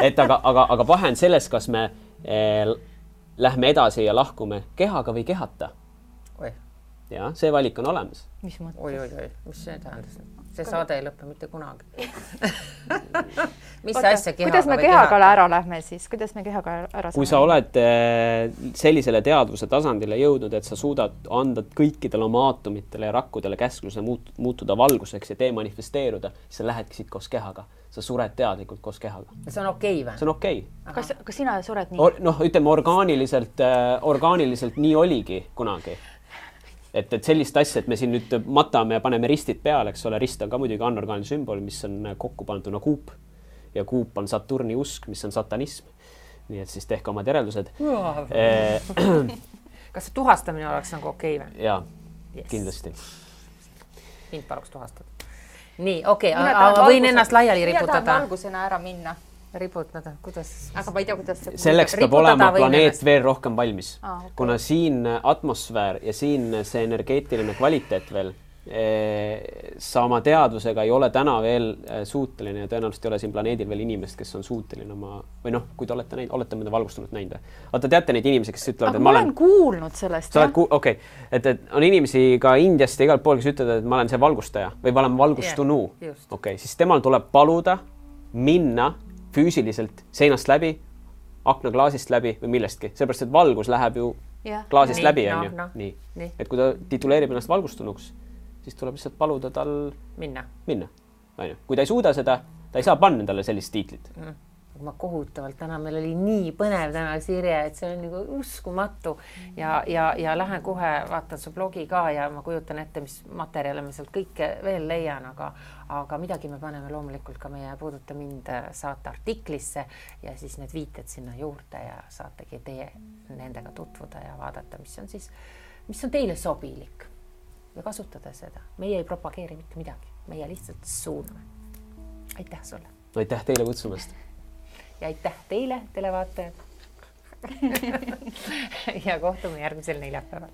Et aga vahe on selles, kas me lähme edasi ja lahkume kehaga või kehata. Ja see valik on olemas. Mis mõttes? Oi, mis see tähendas? See saade ei lõppe mitte kunagi. Mis asja kehaga? Kuidas me kehaga ära lähme siis? Kuidas me kehaga ära saame? Kui sa oled sellisele teadvuse tasandile jõudnud, et sa suudad anda kõikidele oma aatomitele ja rakkudele käskluse muutuda valguseks ja demanifesteeruda, siis sa lähedki siit koos kehaga. Sa sured teadlikult koos kehaga. See on okei või? See on okei. Kas sina sured nii? Noh, ütleme orgaaniliselt nii oligi kunagi. Et sellist asja, et me siin nüüd matame ja paneme ristid peale, eks ole, rist on ka muidugi anorgaaniline sümbol, mis on kokku panduna kuup ja kuup on Saturni usk, mis on satanism. Nii et siis tehke omad järeldused. Kas see tuhastamine oleks nagu okei või? Jaa, kindlasti. Mind paluks tuhastada. Nii, okei, aga võin ennast laiali riputada. Mina tahan valgusena ära minna. Riputada, kuidas? Aga ma ei tea, kuidas see... Selleks peab olema planeet veel rohkem valmis. Okay. Kuna siin atmosfäär ja siin see energeetiline kvaliteet veel sa oma teadvusega ei ole täna veel suuteline ja tõenäoliselt ei ole siin planeedil veel inimest, kes on suuteline oma, või noh, kui te olete mõnda valgustunut näinud. Vaata, teate neid inimesi, kes ütlevad, et ma olen kuulnud sellest. Okei. Et on inimesi ka Indiast ja igalt pool, kes ütlevad, et ma olen see valgustaja või ma olen valgustunu. Okei, siis temal tuleb paluda minna füüsiliselt seinast läbi, aknaklaasist läbi või millestki. Seepärast, et valgus läheb ju klaasist läbi, on ju. Nii. Et kui ta tituleerib ennast valgustunuks, siis tuleb lihtsalt paluda tal minna. Kui ta ei suuda seda, ta ei saa panna endale sellist tiitlit. Ma kohutavalt täna, meil oli nii põnev täna Sirje, et see on nagu uskumatu ja lähen kohe, vaatan su blogi ka ja ma kujutan ette, mis materjale me sealt kõike veel leian, aga midagi me paneme loomulikult ka meie Puuduta mind saate artiklisse ja siis need viited sinna juurde ja saategi teie nendega tutvuda ja vaadata, mis on teile sobilik. Ja kasutada seda. Meie ei propageeri mitte midagi. Meie lihtsalt suuname. Aitäh sulle. Aitäh teile kutsumast. Ja aitäh teile, televaatajad. Ja kohtume järgmisel neljapäeval.